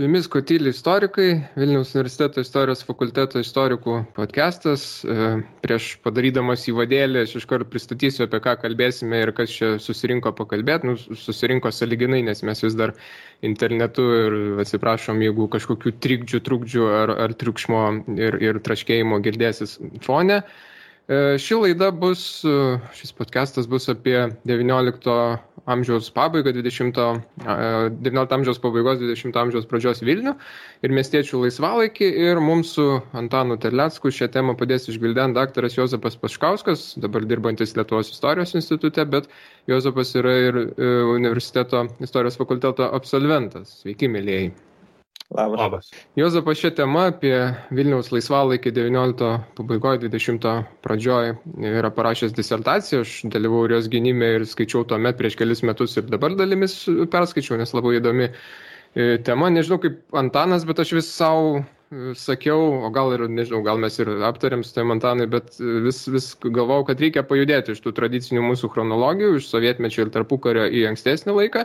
Su jumis Kotyli istorikai, Vilniaus universiteto istorijos fakulteto istorikų podcastas. Prieš padarydamas įvadėlį, aš iškart pristatysiu, apie ką kalbėsime ir kas čia susirinko pakalbėti. Susirinko sąlyginai, nes mes vis dar internetu ir atsiprašom, jeigu kažkokių trukdžių ar triukšmo ir traškėjimo girdėsis fone. Šis podcastas bus apie 19 amžiaus pabaigą, 19 amžiaus pabaigos, 20 amžiaus pradžios Vilnių ir miestiečių laisvalaikį. Ir mums su Antanu Terlecku šią temą padės išgvildenti daktaras Juozapas Paškauskas, dabar dirbantis Lietuvos istorijos institute, bet Juozapas yra ir universiteto istorijos fakulteto absolventas. Sveiki, mielieji. Labas. Juozapas šią temą apie Vilniaus laisvalaikį 19 pabaigoje, 20 pradžioje yra parašęs disertaciją. Aš dalyvau jos gynime ir skaičiau tuomet prieš kelis metus ir dabar dalimis perskaičiau, nes labai įdomi tema. Nežinau kaip Antanas, bet aš vis savo sakiau, o gal ir nežinau, gal mes ir aptarėm su tai Antanai, bet vis galvojau, kad reikia pajudėti iš tų tradicinių mūsų chronologijų, iš sovietmečio ir tarpukario į ankstesnį laiką.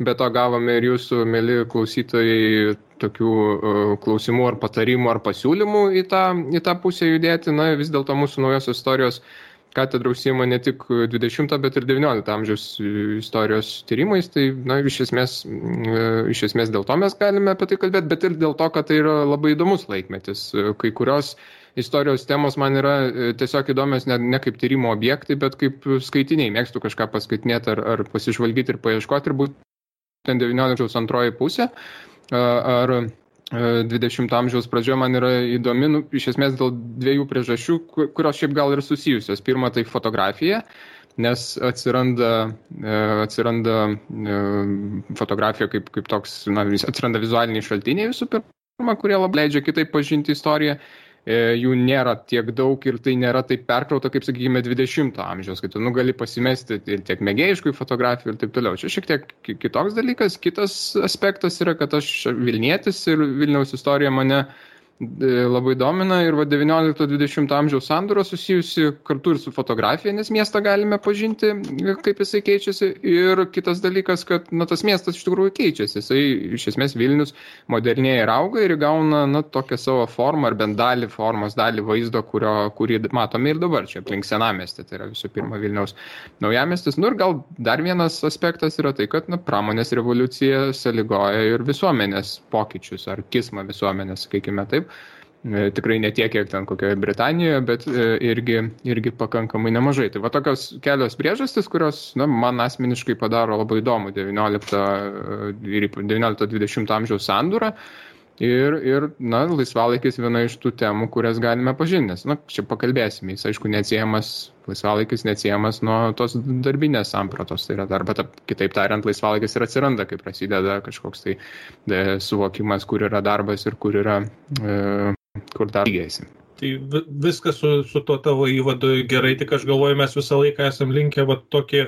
Be to gavome ir jūsų, mėly klausytojai, tokių klausimų ar patarimų ar pasiūlymų į tą pusę judėti. Na, vis dėlto mūsų naujosios istorijos katedra užsiima ne tik 20, bet ir 19 amžiaus istorijos tyrimais. Tai, na, iš esmės dėl to mes galime apie tai kalbėti, bet ir dėl to, kad tai yra labai įdomus laikmetis. Kai kurios istorijos temos man yra tiesiog įdomios ne kaip tyrimo objektai, bet kaip skaitiniai. Mėgstu kažką paskaitinėti ar pasižvalgyti ir paieškoti ir būtent 19 antroji pusė ar 20 amžiaus pradžioje man yra įdomi, iš esmės dėl dviejų priežasčių, kurios šiaip gal ir susijusios. Pirma, tai fotografija, nes atsiranda fotografija kaip toks, atsiranda vizualiniai šaltiniai visų pirma, kurie labai leidžia kitaip pažinti istoriją. Jų nėra tiek daug ir tai nėra taip perkrauta, kaip, sakykime, 20 amžiaus, kai tu gali pasimesti ir tiek mėgėjiškų fotografijų ir taip toliau. Čia šiek tiek kitoks dalykas. Kitas aspektas yra, kad aš Vilnietis ir Vilniaus istorija mane labai domina ir 19-20 amžiaus sandūra susijusi kartu ir su fotografija, nes miestą galime pažinti, kaip jisai keičiasi. Ir kitas dalykas, kad tas miestas iš tikrųjų keičiasi. Jisai iš esmės Vilnius modernėja ir auga ir įgauna tokią savo formą ar bent dalį vaizdo, kurį matome ir dabar čia aplink senamiestį. Tai yra visų pirma Vilniaus naujamiestis. Ir gal dar vienas aspektas yra tai, kad pramonės revoliucija sąlygoja ir visuomenės pokyčius ar kismą visuomenės, sakykime taip. Tikrai ne tiek, kiek ten kokioje Britanijoje, bet irgi pakankamai nemažai. Tai va tokios kelios priežastys, kurios man asmeniškai padaro labai įdomu 19-20 amžiaus sandūrą. Ir laisvalaikis viena iš tų temų, kurias galime pažinti. Nes, čia pakalbėsime. Jis, aišku, laisvalaikis neatsiejamas nuo tos darbinės sampratos. Tai yra darba, kitaip tariant, laisvalaikis ir atsiranda, kai prasideda kažkoks tai suvokimas, kur yra darbas ir kur dar lygiasi. Tai viskas su to tavo įvadu gerai, tik aš galvoju, mes visą laiką esam linkę tokį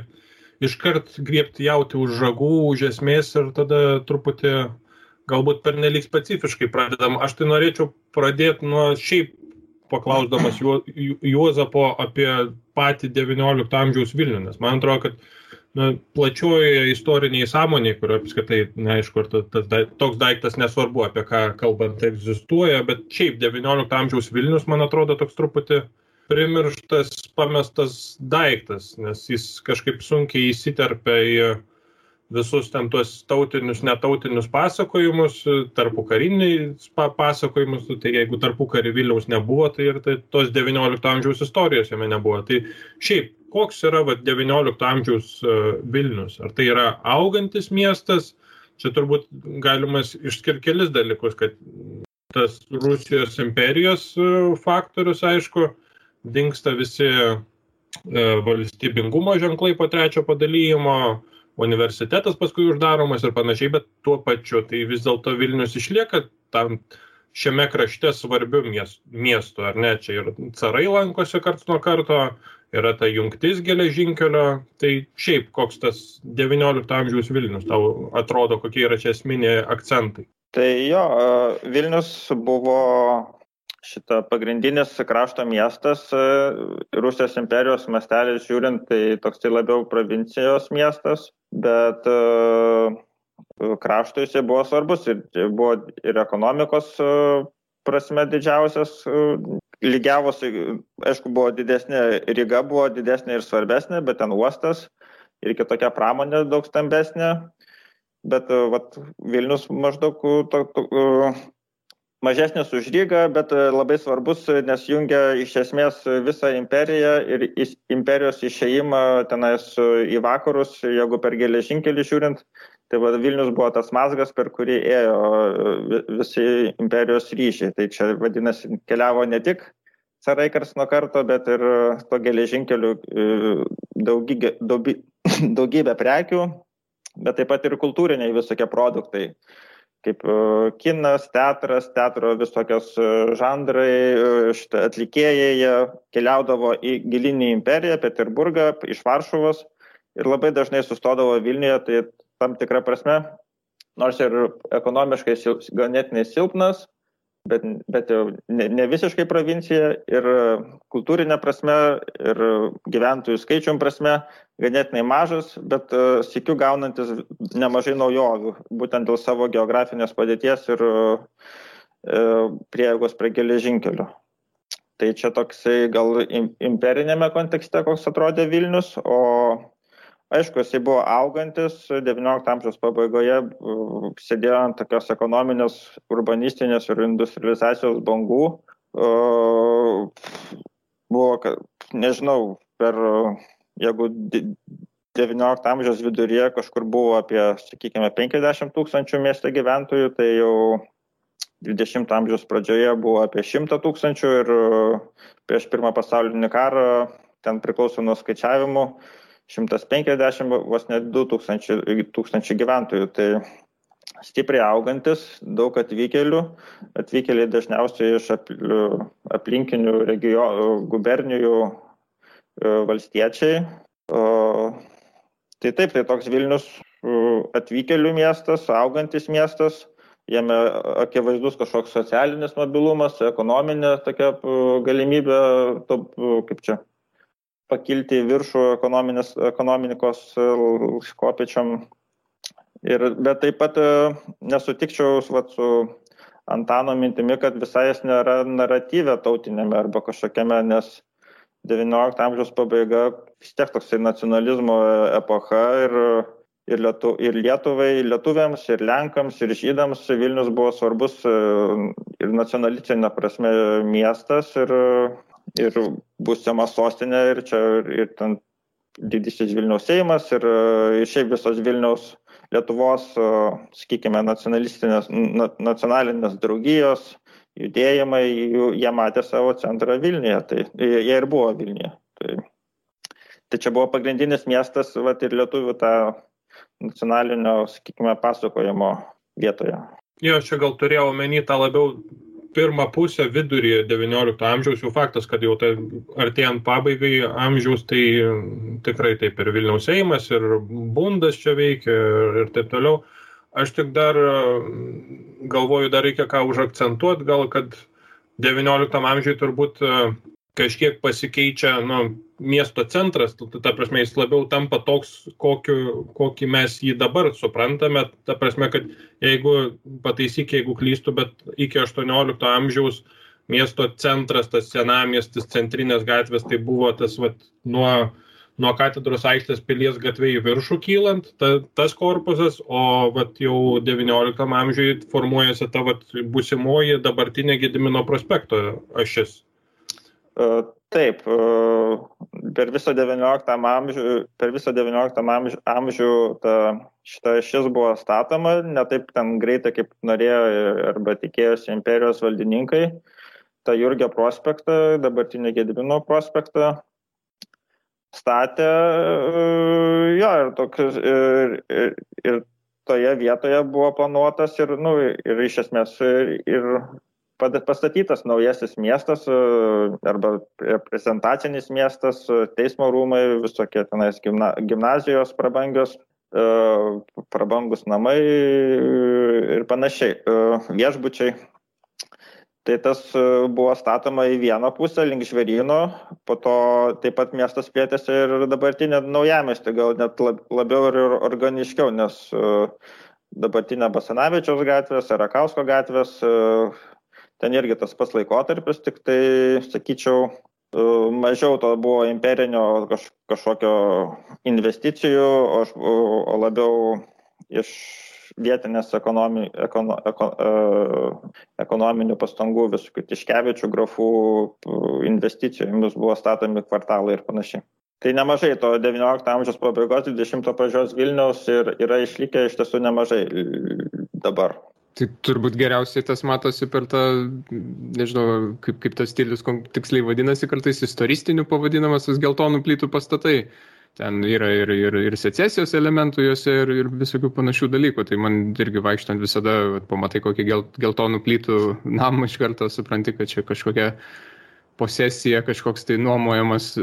iškart griebti jauti už žagų, už esmės ir tada truputį galbūt pernelyg specifiškai pradedam. Aš tai norėčiau pradėti nuo šiaip paklausdamas Juozapo apie patį 19 amžiaus Vilnių, nes man atrodo, kad plačiojoje istoriniai sąmonėje, kurio apskritai, neaišku, ar toks daiktas nesvarbu, apie ką kalbant egzistuoja, bet šiaip 19 amžiaus Vilnius, man atrodo, toks truputį primirštas, pamestas daiktas, nes jis kažkaip sunkiai įsiterpia į visus ten tuos tautinius, netautinius pasakojimus, tarpukarinius pasakojimus, tai jeigu tarpukarį Vilniaus nebuvo, tai ir tos 19 amžiaus istorijos jame nebuvo. Tai šiaip, koks yra 19 amžiaus Vilnius? Ar tai yra augantis miestas? Čia turbūt galimas išskirti kelis dalykus, kad tas Rusijos imperijos faktorius, aišku, dingsta visi valstybingumo ženklai po trečio padalijimo, universitetas paskui uždaromas ir panašiai, bet tuo pačiu tai vis dėlto Vilnius išlieka tam šiame krašte svarbiu miestu, ar ne? Čia ir carai lankosi karts nuo karto, yra ta jungtis geležinkelio, tai šiaip koks tas 19 amžiaus Vilnius, tau atrodo, kokie yra čia esminiai akcentai? Tai jo, Vilnius buvo pagrindinis krašto miestas, Rusijos imperijos mastelis žiūrint, tai toks tai labiau provincijos miestas, bet kraštui jisai buvo svarbus ir buvo ir ekonomikos prasme didžiausias, lygiavosi, aišku, buvo didesnė, Ryga buvo didesnė ir svarbesnė, bet ten uostas ir kitokia pramonė daug stambesnė, bet Vilnius maždaug mažesnis už Rygą, bet labai svarbus, nes jungia iš esmės visą imperiją ir imperijos išėjimą tenais į vakarus, jeigu per geležinkelį žiūrint, tai Vilnius buvo tas mazgas, per kurį ėjo visi imperijos ryšiai. Tai čia vadinasi, keliavo ne tik carai karts nuo karto, bet ir to geležinkeliu daugybė prekių, bet taip pat ir kultūriniai visokie produktai, kaip kinas, teatras, teatro visokios žanrai, atlikėjai, jie keliaudavo į gilinį imperiją, Peterburgą, iš Varšuvos ir labai dažnai sustodavo Vilniuje, tai tam tikrą prasme, nors ir ekonomiškai ganėtinai silpnas, bet jau ne visiškai provincija ir kultūrinė prasme ir gyventojų skaičium prasme ganėtinai mažas, bet sykiu gaunantis nemažai naujovių, būtent dėl savo geografinės padėties ir prieigos prie geležinkelių. Tai čia toksai gal imperinėme kontekste, koks atrodė Vilnius, o aišku, jisai buvo augantis, 19 amžiaus pabaigoje sėdėjo ant tokios ekonominės, urbanistinės ir industrializacijos bangų. Buvo, nežinau, jeigu 19 amžiaus viduryje kažkur buvo apie, sakykime, 50 000 mieste gyventojų, tai jau 20 amžiaus pradžioje buvo apie 100 000 ir prieš Pirmą pasaulinį karą, ten priklauso nuo skaičiavimų, 150, vos net 2000 gyventojų. Tai stipriai augantis, daug atvykėliai dažniausiai iš aplinkinių regionų, gubernijų valstiečiai. Tai taip, tai toks Vilnius atvykėlių miestas, augantis miestas, jame akivaizdus kažkoks socialinis mobilumas, ekonominė tokia galimybė, kaip čia, pakilti į viršų ekonomikos kopėčiom. Bet taip pat nesutikčiau su Antano mintimi, kad visai jis nėra naratyve tautinėme arba kažkokiame, nes 19 amžiaus pabaiga vis tiek toksai nacionalizmo epocha ir Lietuvai, lietuviams, ir Lenkams, ir žydams Vilnius buvo svarbus ir nacionalistinė prasme miestas ir būsima sostinė ir čia ir ten didysis Vilniaus Seimas ir šiaip visos Vilniaus Lietuvos, sakykime, nacionalinės draugijos, judėjimai, jie matė savo centrą Vilniuje, tai jie ir buvo Vilniuje. Tai čia buvo pagrindinis miestas ir lietuvių tą nacionalinio, sakykime, pasakojimo vietoje. Jo, čia gal turėjau omeny tą labiau pirmą pusę vidurį 19 amžiaus, jau faktas, kad jau tai artėjant pabaigai amžiaus, tai tikrai taip ir Vilniaus Seimas, ir Bundas čia veikia ir taip toliau. Aš tik dar galvoju, dar reikia ką užakcentuoti, gal kad 19 amžiui turbūt kažkiek pasikeičia miesto centras, ta prasme jis labiau tampa toks, kokį mes jį dabar suprantame, ta prasme, kad jeigu pataisyk, jeigu klystu, bet iki 18 amžiaus miesto centras, tas senamiestis, centrinės gatvės, tai buvo tas nuo Katedros aikštės Pilies gatvė į viršų kylant, tas korpusas, o jau 19 amžiui formuojasi ta būsimoji dabartinė Gedimino prospekto ašis. Taip, per visą 19 amžių šita ašis buvo statoma, ne taip ten greitai, kaip norėjo arba tikėjosi imperijos valdininkai. Ta Jurgio prospektą, dabartinį Gedimino prospektą statė, ir toje vietoje buvo planuotas ir iš esmės ir pastatytas naujasis miestas arba reprezentacinis miestas, teismo rūmai, visokie tenais gimnazijos prabangios, prabangus namai ir panašiai, viešbučiai. Tai tas buvo statoma į vieną pusę link Žvėryno, po to taip pat miestas plėtėsi ir dabartinė naujamiestį, gal net labiau ir organiškiau, nes dabartinė Basanavičiaus gatvės, Rakausko gatvės, ten irgi tas pats laikotarpis, tik tai, sakyčiau, mažiau to buvo imperinio kažkokio investicijų, o labiau iš vietinės ekonominių pastangų, visokių Tiškevičių, grafų investicijomis buvo statomi kvartalai ir panašiai. Tai nemažai to 19 amžiaus pabaigos, 20 pradžios Vilniaus ir yra išlikę iš tiesų nemažai dabar. Tai turbūt geriausiai tas matosi per tą, nežinau, kaip tas stilius tiksliai vadinasi, kartais istoristiniu pavadinamas tas geltonų plytų pastatai. Ten yra ir secesijos elementų juose ir visokių panašių dalykų. Tai man irgi vaikštant visada pamatai kokį geltonų plytų namą iš karto supranti, kad čia kažkokia posesija, kažkoks tai nuomojamas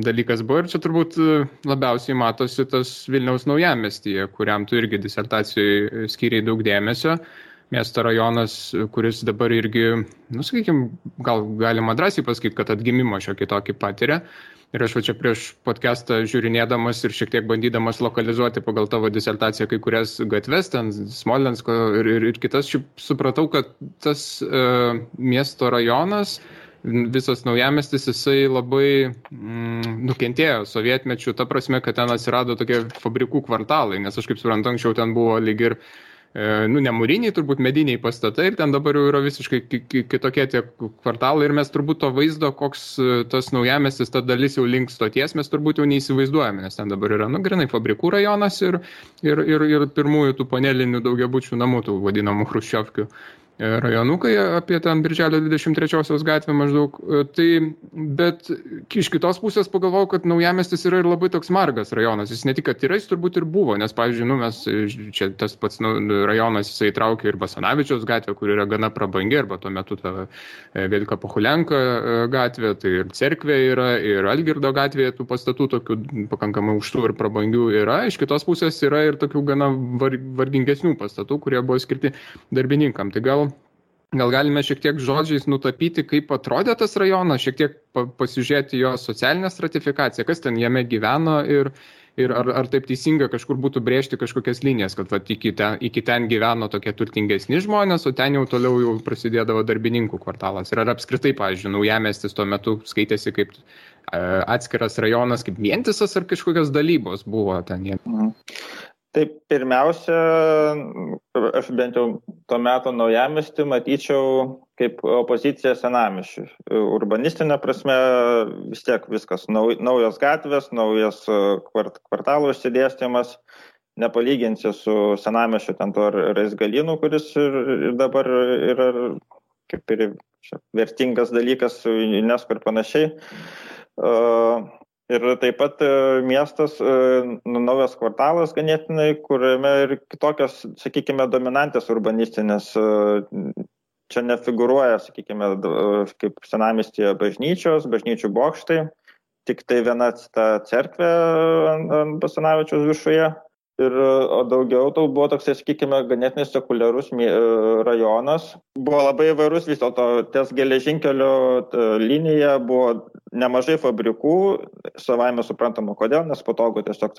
dalykas buvo. Ir čia turbūt labiausiai matosi tas Vilniaus naujamiestyje, kuriam tu irgi disertacijoje skyrei daug dėmesio. Miesto rajonas, kuris dabar irgi, sakykime, gal galima drąsiai pasakyti, kad atgimimo šiokį tokį patiria. Ir aš čia prieš podcastą žiūrinėdamas ir šiek tiek bandydamas lokalizuoti pagal tavo disertaciją kai kurias gatves, ten Smolensko ir kitas, supratau, kad tas miesto rajonas, visas naujamiestis, jisai labai nukentėjo sovietmečiu, ta prasme, kad ten atsirado tokie fabrikų kvartalai, nes aš kaip suprantu, anksčiau ten buvo lyg ir ne mūriniai, turbūt mediniai pastatai ir ten dabar jau yra visiškai kitokie tie kvartalai ir mes turbūt to vaizdo, koks tas naujamiestis, ta dalis jau link stoties, mes turbūt jau neįsivaizduojame, nes ten dabar yra, grinai fabrikų rajonas ir pirmųjų tų panelinių daugiabučių namų, tų vadinamų chruščiovkių rajonukai apie ten Birželio 23 gatvę maždaug. Tai, bet iš kitos pusės pagalvojau, kad naujamiestis yra ir labai toks margas rajonas. Jis ne tik, kad yra, jis turbūt ir buvo, nes, pavyzdžiui, mes čia tas pats rajonas jisai traukia ir Basanavičiaus gatvę, kur yra gana prabangi, arba tuo metu ta Velika Pohulenka gatvė, tai ir cerkvė yra, ir Algirdo gatvėje tų pastatų tokių pakankamai aukštų ir prabangių yra. Iš kitos pusės yra ir tokių gana vargingesnių pastatų, kurie buvo skirti darbininkam. Tai gal galime šiek tiek žodžiais nutapyti, kaip atrodė tas rajonas, šiek tiek pasižiūrėti jo socialinę stratifikaciją, kas ten jame gyveno ir ar taip teisinga kažkur būtų brėžti kažkokias linijas, kad iki ten gyveno tokie turtingesni žmonės, o ten jau toliau jau prasidėdavo darbininkų kvartalas. Ir ar apskritai, pavyzdžiui, naujamiestis tuo metu skaitėsi kaip atskiras rajonas, kaip vientisas ar kažkokios dalybos buvo ten jame? Taip, pirmiausia, aš bent jau tuo metu naujamiestį matyčiau kaip opozicija senamiesčiui. Urbanistinė prasme vis tiek viskas, naujos gatvės, naujas kvartalų išsidėstymas, nepalyginsi su senamiesčiu ten to Raizgalynų, kuris ir dabar yra kaip ir vertingas dalykas su UNESCO ir panašiai. Ir taip pat miestas, naujas kvartalas ganėtinai, kuriame ir kitokios, sakykime, dominantės urbanistinės, čia nefigūruoja, sakykime, kaip senamiestyje bažnyčių bokštai, tik tai viena ta cerkvė ant Basanavičiaus viršuje. O daugiau tai buvo toksai, sakykime, ganėtinai sekuliarus rajonas. Buvo labai įvairus vis dėlto, ties geležinkelio linija buvo nemažai fabrikų, savaime suprantama kodėl, nes patogu tiesiog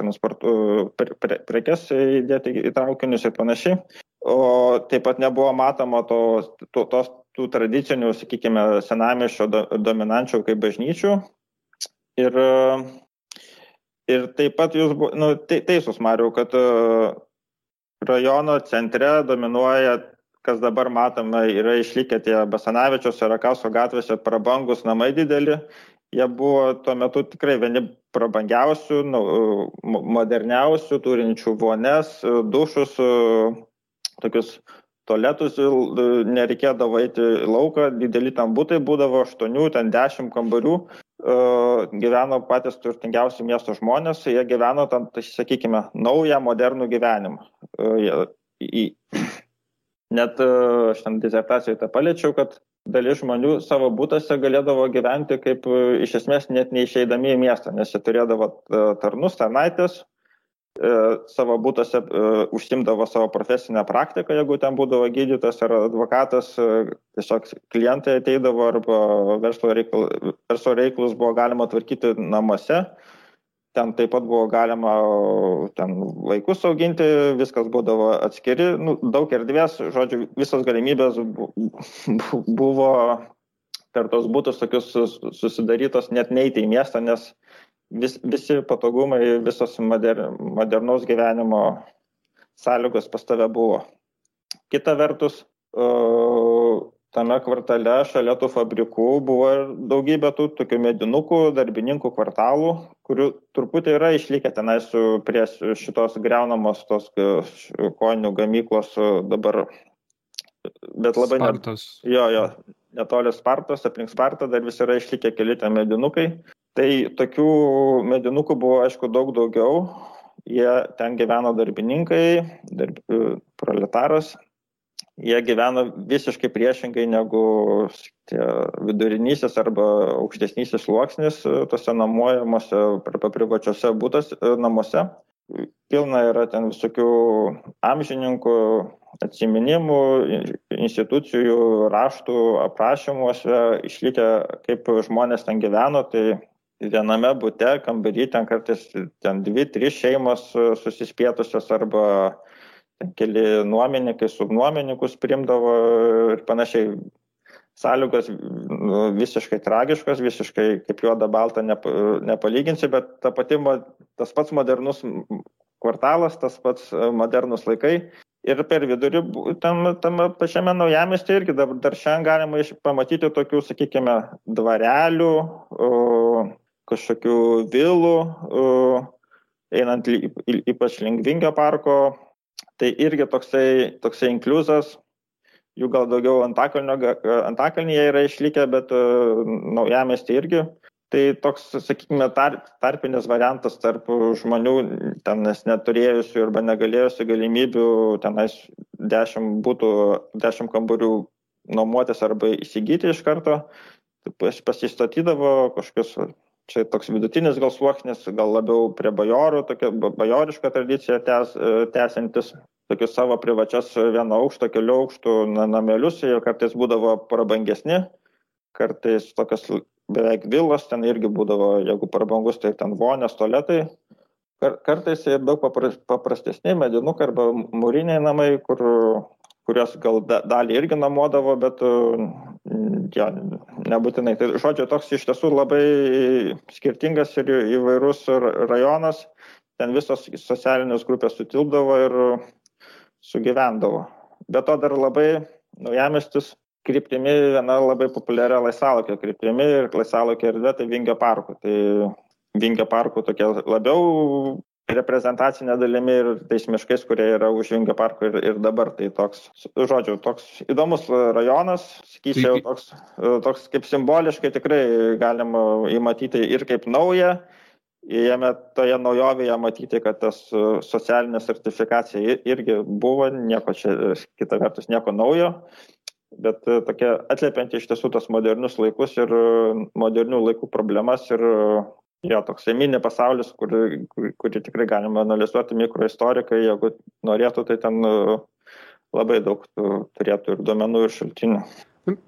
prekes įdėti į traukinius ir panašiai. O taip pat nebuvo matoma tų tradicinių, sakykime, senamiesčio dominančių kaip bažnyčių. Ir taip pat jūs teisus, Mariau, kad rajono centre dominuoja, kas dabar matome, yra išlikę tie Basanavičiaus ir Rakausko gatvėse prabangus namai dideli. Jie buvo tuo metu tikrai vieni prabangiausių, moderniausių, turinčių vonias, dušus, tokius tualetus, nereikėdavo eiti į lauką, dideli ten butai būdavo 8, ten 10 kambarių. Gyveno patys turtingiausi miesto žmonės, jie gyveno tam, tai sakykime, naują, modernų gyvenimą. Net aš ten disertacijoje tą paliečiau, kad dalis žmonių savo būtuose galėdavo gyventi kaip iš esmės net neišeidami į miestą, nes jie turėdavo tarnus, tarnaitės, savo būtuose užsimdavo savo profesinę praktiką, jeigu ten būdavo gydytojas ar advokatas, tiesiog klientai ateidavo arba verslo reikalus buvo galima tvarkyti namuose. ten taip pat buvo galima ten vaikus auginti, viskas būdavo atskiri, daug erdvės, žodžiu, visos galimybės buvo per tos būtus tokius susidarytos net neiti į miestą, nes visi patogumai, visos modernaus gyvenimo sąlygos pas tave buvo. Kita vertus, tame kvartale šalia tų fabrikų buvo ir daugybė tų tokių medinukų, darbininkų kvartalų, kurių truputį yra išlikę tenais prie šitos griaunamos tos kojinių gamyklos dabar. Bet labai netoli Spartos, aplink Spartą dar vis yra išlikę keli ten medinukai. Tai tokių medinukų buvo, aišku, daug daugiau. Jie ten gyveno darbininkai, proletaras. Jie gyveno visiškai priešingai negu tie vidurinysis arba aukštesnysis sluoksnis tose namuojamuose arba privačiose namuose. Pilna yra ten visokių amžininkų atsiminimų, institucijų, raštų, aprašymuose išlikę, kaip žmonės ten gyveno. Tai viename bute, kambarį, ten kartais 2-3 šeimos susispietusios arba keli nuomininkai, subnuomininkus priimdavo ir panašiai. Sąlygos visiškai tragiškos, visiškai kaip juoda balta nepalyginsi, bet tas pats modernus kvartalas, tas pats modernus laikai. Ir per vidurį tame pačiame naujamiestyje irgi dar šiandien galima pamatyti tokių, sakykime, dvarelių, kažkokių vilų, einant ypač link Vingio parko. Tai irgi toksai inkliuzas, jų gal daugiau Antakalnyje yra išlikę, bet naujamiestyje irgi. Tai toks, sakykime, tarpinis variantas tarp žmonių, tenais neturėjusių arba negalėjusių galimybių tenais 10 kambarių nuomotis arba įsigyti iš karto. Pasistatydavo kažkokius, čia toks vidutinis gal sluoksnis, gal labiau prie bajorų, tokia bajoriška tradicija tęsiantis, tokius savo privačias vieno aukšto, kelių aukštų namelius, jie kartais būdavo prabangesni, kartais tokios beveik vilos, ten irgi būdavo, jeigu prabangus, tai ten vonės, tualetai. Kartais ir daug paprastesni medinukai arba mūriniai namai, kurios gal dalį irgi namuodavo, bet nebūtinai. Tai žodžiu, toks iš tiesų labai skirtingas ir įvairus rajonas. Ten visos socialinės grupės sutilpdavo ir sugyvendavo. Be to dar labai naujamiestis kryptimi viena labai populiaria laisvalaikio kryptimi ir laisvalaikio erdvė tai Vingio parko. Tai Vingio parko tokia labiau reprezentacinė dalimi ir tais miškais, kurie yra už Vingio parko ir dabar. Tai toks, žodžiu, toks įdomus rajonas, sakyčiau, toks kaip simboliškai tikrai galima įmatyti ir kaip naują. Jame toje naujovėje matyti, kad tas socialinė sertifikacija irgi buvo, nieko čia, kita vertus, nieko naujo, bet tokia atliepianti iš tiesų tos modernius laikus ir modernių laikų problemas ir toks mini pasaulis, kurį tikrai galima analizuoti mikroistorikai, jeigu norėtų, tai ten labai daug turėtų ir duomenų ir šaltinių.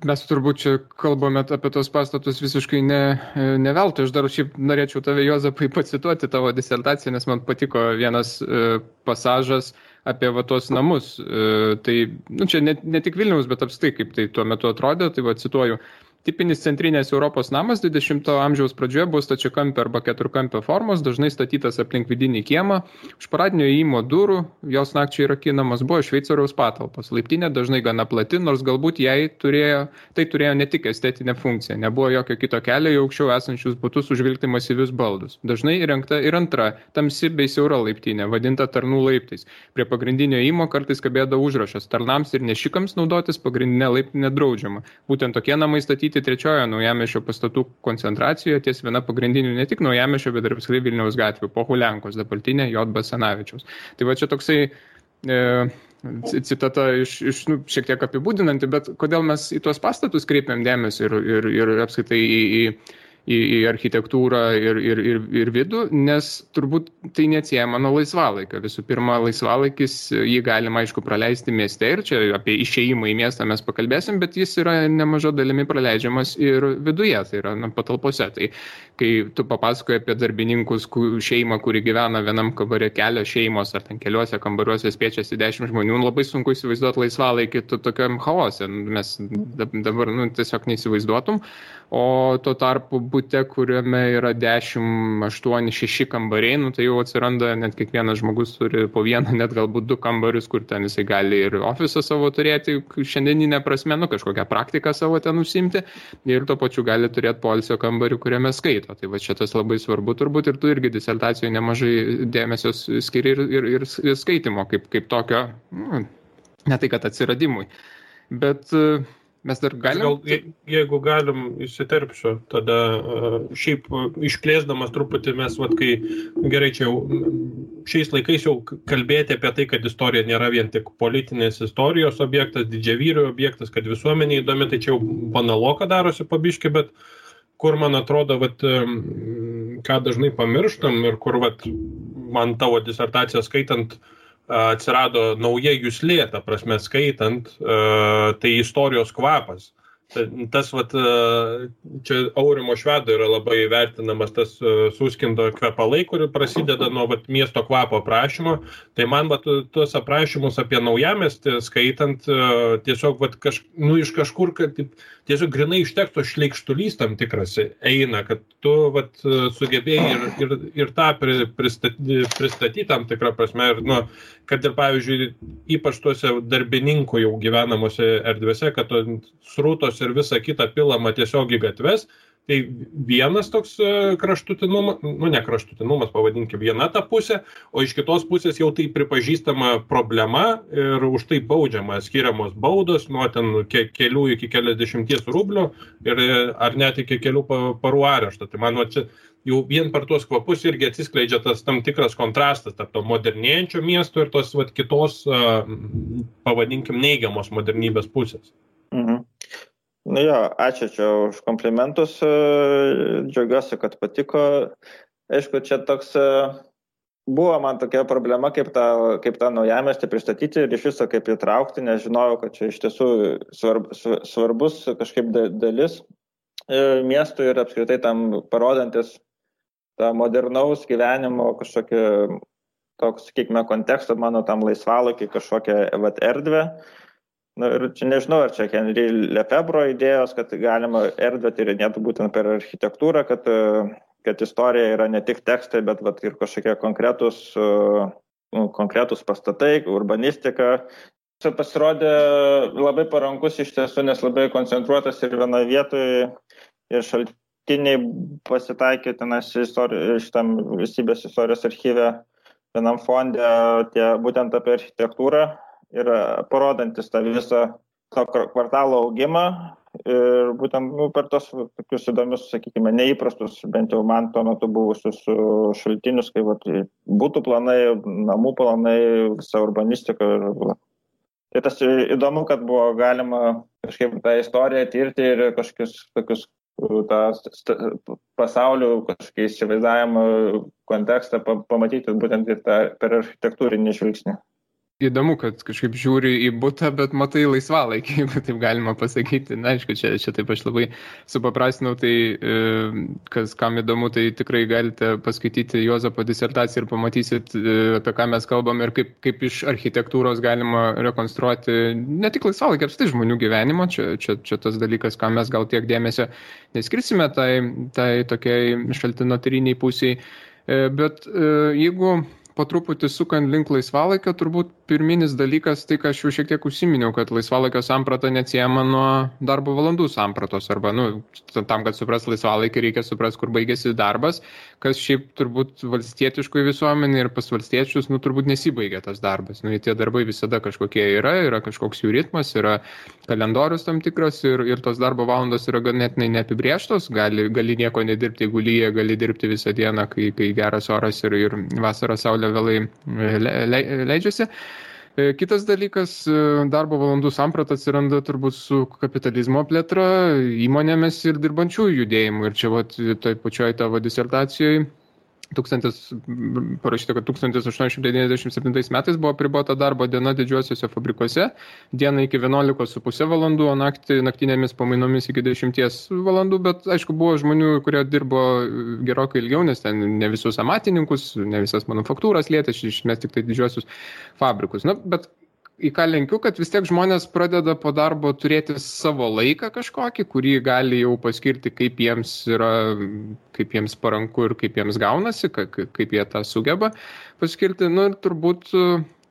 Mes turbūt čia kalbame apie tos pastatus visiškai ne veltui. Aš dar šiaip norėčiau tave, Juozapai, pacituoti tavo disertaciją, nes man patiko vienas pasažas apie tos namus. Tai čia ne tik Vilniaus, bet apskritai, kaip tai tuo metu atrodė, tai cituoju. Tipinis centrinės Europos namas 20 amžiaus pradžioje buvo stačiakampio arba keturkampio formos, dažnai statytas aplink vidinį kiemą. Už paradinio įėjimo durų, jos nakčiai rakinamos, buvo šveicariaus patalpos. Laiptinė dažnai gana plati, nors galbūt tai turėjo ne tik estetinę funkciją. Nebuvo jokio kito kelio į aukščiau esančius butus užvilkti masyvius baldus. Dažnai įrengta ir antra, tamsi bei siaura laiptinė, vadinta tarnų laiptais. Prie pagrindinio įėjimo kartais kabėdavo užrašas: tarnams ir nešikams naudotis pagrindinė laiptinė draudžiama. Būtent tokie namai statyti trečiojo naujamiesčio pastatų koncentracijoje ties viena pagrindinių ne tik naujamiesčio, bet ir apskritai Vilniaus gatvių, Pohuliankos, dabartinė J. Basanavičiaus. Tai va čia toksai citata šiek tiek apibūdinanti, bet kodėl mes į tuos pastatus kreipiam dėmesį ir apskritai į architektūrą ir vidų, nes turbūt tai neatsiejama nuo laisvalaikio. Visų pirma, laisvalaikis, jį galima, aišku, praleisti mieste ir čia apie išėjimą į miestą mes pakalbėsim, bet jis yra nemaža dalimi praleidžiamas ir viduje, tai yra patalpose. Tai kai tu papasakoji apie darbininkus šeimą, kuri gyvena vienam kambare, kelios šeimos ar ten keliuose kambariuose spiečiasi 10 žmonių, labai sunku įsivaizduoti laisvalaikį tokiam chaose. Mes dabar tiesiog neįsivaizduotum. O tuo tarpu bute, kuriame yra 10, 8, 6 kambariai, tai jau atsiranda, net kiekvienas žmogus turi po vieną, net galbūt 2 kambarius, kur ten jisai gali ir ofisą savo turėti, šiandieninę prasme, kažkokią praktiką savo ten užsimti ir tuo pačiu gali turėti poilsio kambarių, kuriame skaito. Tai va čia tas labai svarbu turbūt ir tu irgi disertacijoje nemažai dėmesio skiri ir skaitimo kaip tokio, ne tai kad atsiradimui. Bet mes dar galim... Jeigu galim įsiterpsiu, tada šiaip išplėsdamas truputį mes, kai gerai čia jau šiais laikais jau kalbėti apie tai, kad istorija nėra vien tik politinės istorijos objektas, didžiavyrių objektas, kad visuomenė įdomi, tai čia jau banaloka darosi pabiški, bet kur man atrodo, ką dažnai pamirštam ir kur man tavo disertaciją skaitant, atsirado nauja juslė, ta prasme skaitant, tai istorijos kvapas. Tas, čia Aurimo Švedo yra labai vertinamas tas Suskindo kvepalai, kuri prasideda nuo miesto kvapo aprašymo. Tai man tuos aprašymus apie naujamiestį skaitant, tiesiog iš kažkur, kad tiesiog grinai iš teksto šleikštulys tam tikras eina, kad tu sugebėjai ir tą pristatyti tam tikrą prasme. Ir, kad ir, pavyzdžiui, ypač tuose darbininkų jau gyvenamose erdvėse, kad srautos ir visa kita pilama tiesiog į gatves, tai vienas toks kraštutinumas, ne kraštutinumas, pavadinkime, viena ta pusė, o iš kitos pusės jau tai pripažįstama problema ir už tai baudžiama, skiriamos baudos nuo ten kelių iki keliasdešimties rublių ir ar net iki kelių parų arešto. Tai man čia jau vien per tuos kvapus irgi atsiskleidžia tas tam tikras kontrastas tarp to modernėjančio miesto ir tos kitos, pavadinkim, neigiamos modernybės pusės. Mhm. Ačiū čia už komplimentus, džiaugiuosi, kad patiko. Aišku, čia toks buvo man tokia problema, kaip tą naujamiestį pristatyti ir iš viso kaip įtraukti, nes žinojau, kad čia iš tiesų svarbus kažkaip dalis miestų ir apskritai tam parodantis tą modernaus gyvenimo kažkokį toks, sakykime, kontekstą mano tam laisvalaikiai kažkokią erdvę. Ir čia nežinau, ar čia Henri Lefebvre idėjos, kad galima erdvę tyrinėti būtent per architektūrą, kad istorija yra ne tik tekstai, bet ir kažkokie konkretus pastatai, urbanistika. Čia pasirodė labai parankus iš tiesų, nes labai koncentruotas ir vienoje vietoje ir šaltiniai pasitaikė šitam valstybės istorijos archyve vienam fonde būtent apie architektūrą ir parodantis tą visą to kvartalo augimą ir būtent per tos tokius įdomius, sakykime, neįprastus, bent jau man tuo metu buvusius šaltinius, kai būtų planai, namų planai, visa urbanistika. Tai tas įdomu, kad buvo galima kažkaip tą istoriją tirti ir kažkokius tokius pasaulių kažkokį įsivaizdavimą kontekstą pamatyti būtent ir per architektūrinį žvilgsnį. Įdomu, kad kažkaip žiūri į butą, bet matai laisvalaikį, jeigu taip galima pasakyti. Na, aišku, čia taip aš labai supaprastinau, tai kas kam įdomu, tai tikrai galite paskaityti Juozapo disertaciją ir pamatysit, apie ką mes kalbam ir kaip iš architektūros galima rekonstruoti ne tik laisvalaikį, apskritai žmonių gyvenimo. Čia tas dalykas, ką mes gal tiek dėmesio neskirsime tai tokiai šaltinotyriniai pusiai. Bet jeigu po truputį sukant link laisvalaikio, turbūt pirminis dalykas, tai ką aš jau šiek tiek užsiminiau, kad laisvalaikio samprata neatsiejama nuo darbo valandų sampratos, arba, tam, kad supras laisvalaikį, reikia supras, kur baigėsi darbas, kas šiaip turbūt valstietiškoj visuomenė ir pas valstiečius, turbūt nesibaigia tas darbas. Tie darbai visada kažkokie yra kažkoks jų ritmas, yra kalendorius tam tikras ir tos darbo valandos yra ganėtinai neapibrėžtos, gali nieko nedirbti, jeigu lyja, gali dirbti visą dieną, kai geras oras ir vasarą saulė vėlai leidžiasi. Kitas dalykas, darbo valandų samprata atsiranda turbūt su kapitalizmo plėtra, įmonėmis ir dirbančiųjų judėjimu. Ir čia toj pačioj tavo disertacijoje parašyta, kad 1897 metais buvo apribota darbo diena didžiuosiuose fabrikuose, dieną iki 11,5 valandų, o naktinėmis pamainomis iki 10 valandų, bet aišku, buvo žmonių, kurie dirbo gerokai ilgiau, nes ten ne visus amatininkus, ne visas manufaktūras lietė, iš esmės tik tai didžiuosius fabrikus. Bet į ką lenkiu, kad vis tiek žmonės pradeda po darbo turėti savo laiką kažkokį, kurį gali jau paskirti, kaip jiems paranku ir kaip jiems gaunasi, kaip jie tą sugeba paskirti. Ir turbūt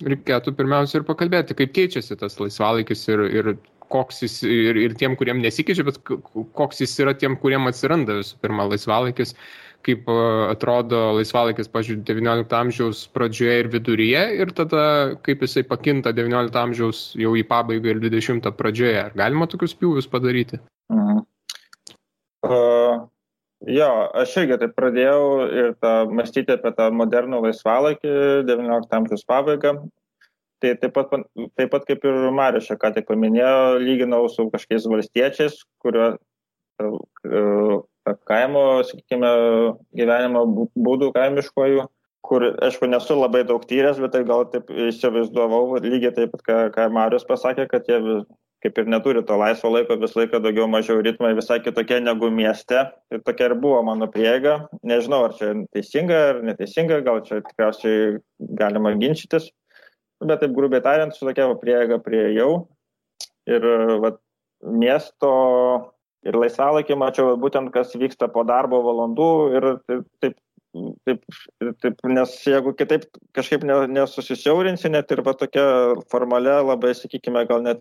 reikėtų pirmiausia ir pakalbėti, kaip keičiasi tas laisvalaikis ir koks jis ir tiem, kuriem nesikeičia, bet koks jis yra tiem, kuriem atsiranda visų pirma laisvalaikis, kaip atrodo laisvalaikis, pavyzdžiui, 19 amžiaus pradžioje ir viduryje ir tada kaip jisai pakinta 19 amžiaus jau į pabaigą ir 20 pradžioje. Ar galima tokius pjūvius padaryti? Jo, aš irgi taip pradėjau ir mąstyti apie tą modernų laisvalaikį 19 amžiaus pabaigą. Tai taip pat kaip ir Marius ką tik paminėjo, lyginau su kažkokiais valstiečiais, kurio kaimo, sakykime, gyvenimo būdų kaimiškojų, kur, aišku, nesu labai daug tyręs, bet tai gal taip įsivaizduovau, lygiai taip pat, ką Marius pasakė, kad jie kaip ir neturi to laisvo laiko, vis laiką daugiau mažiau ritmai visai kitokie negu mieste. Ir tokia ir buvo mano prieiga. Nežinau, ar čia teisinga ar neteisinga, gal čia tikriausiai galima ginčytis, bet taip grubiai tariant, su tokia prieiga priėjau. Ir miesto ir laisvalaikį mačiau būtent, kas vyksta po darbo valandų ir taip, nes jeigu kitaip kažkaip nesusisiaurinsi, net ir tokia formalia, labai, sakykime, gal net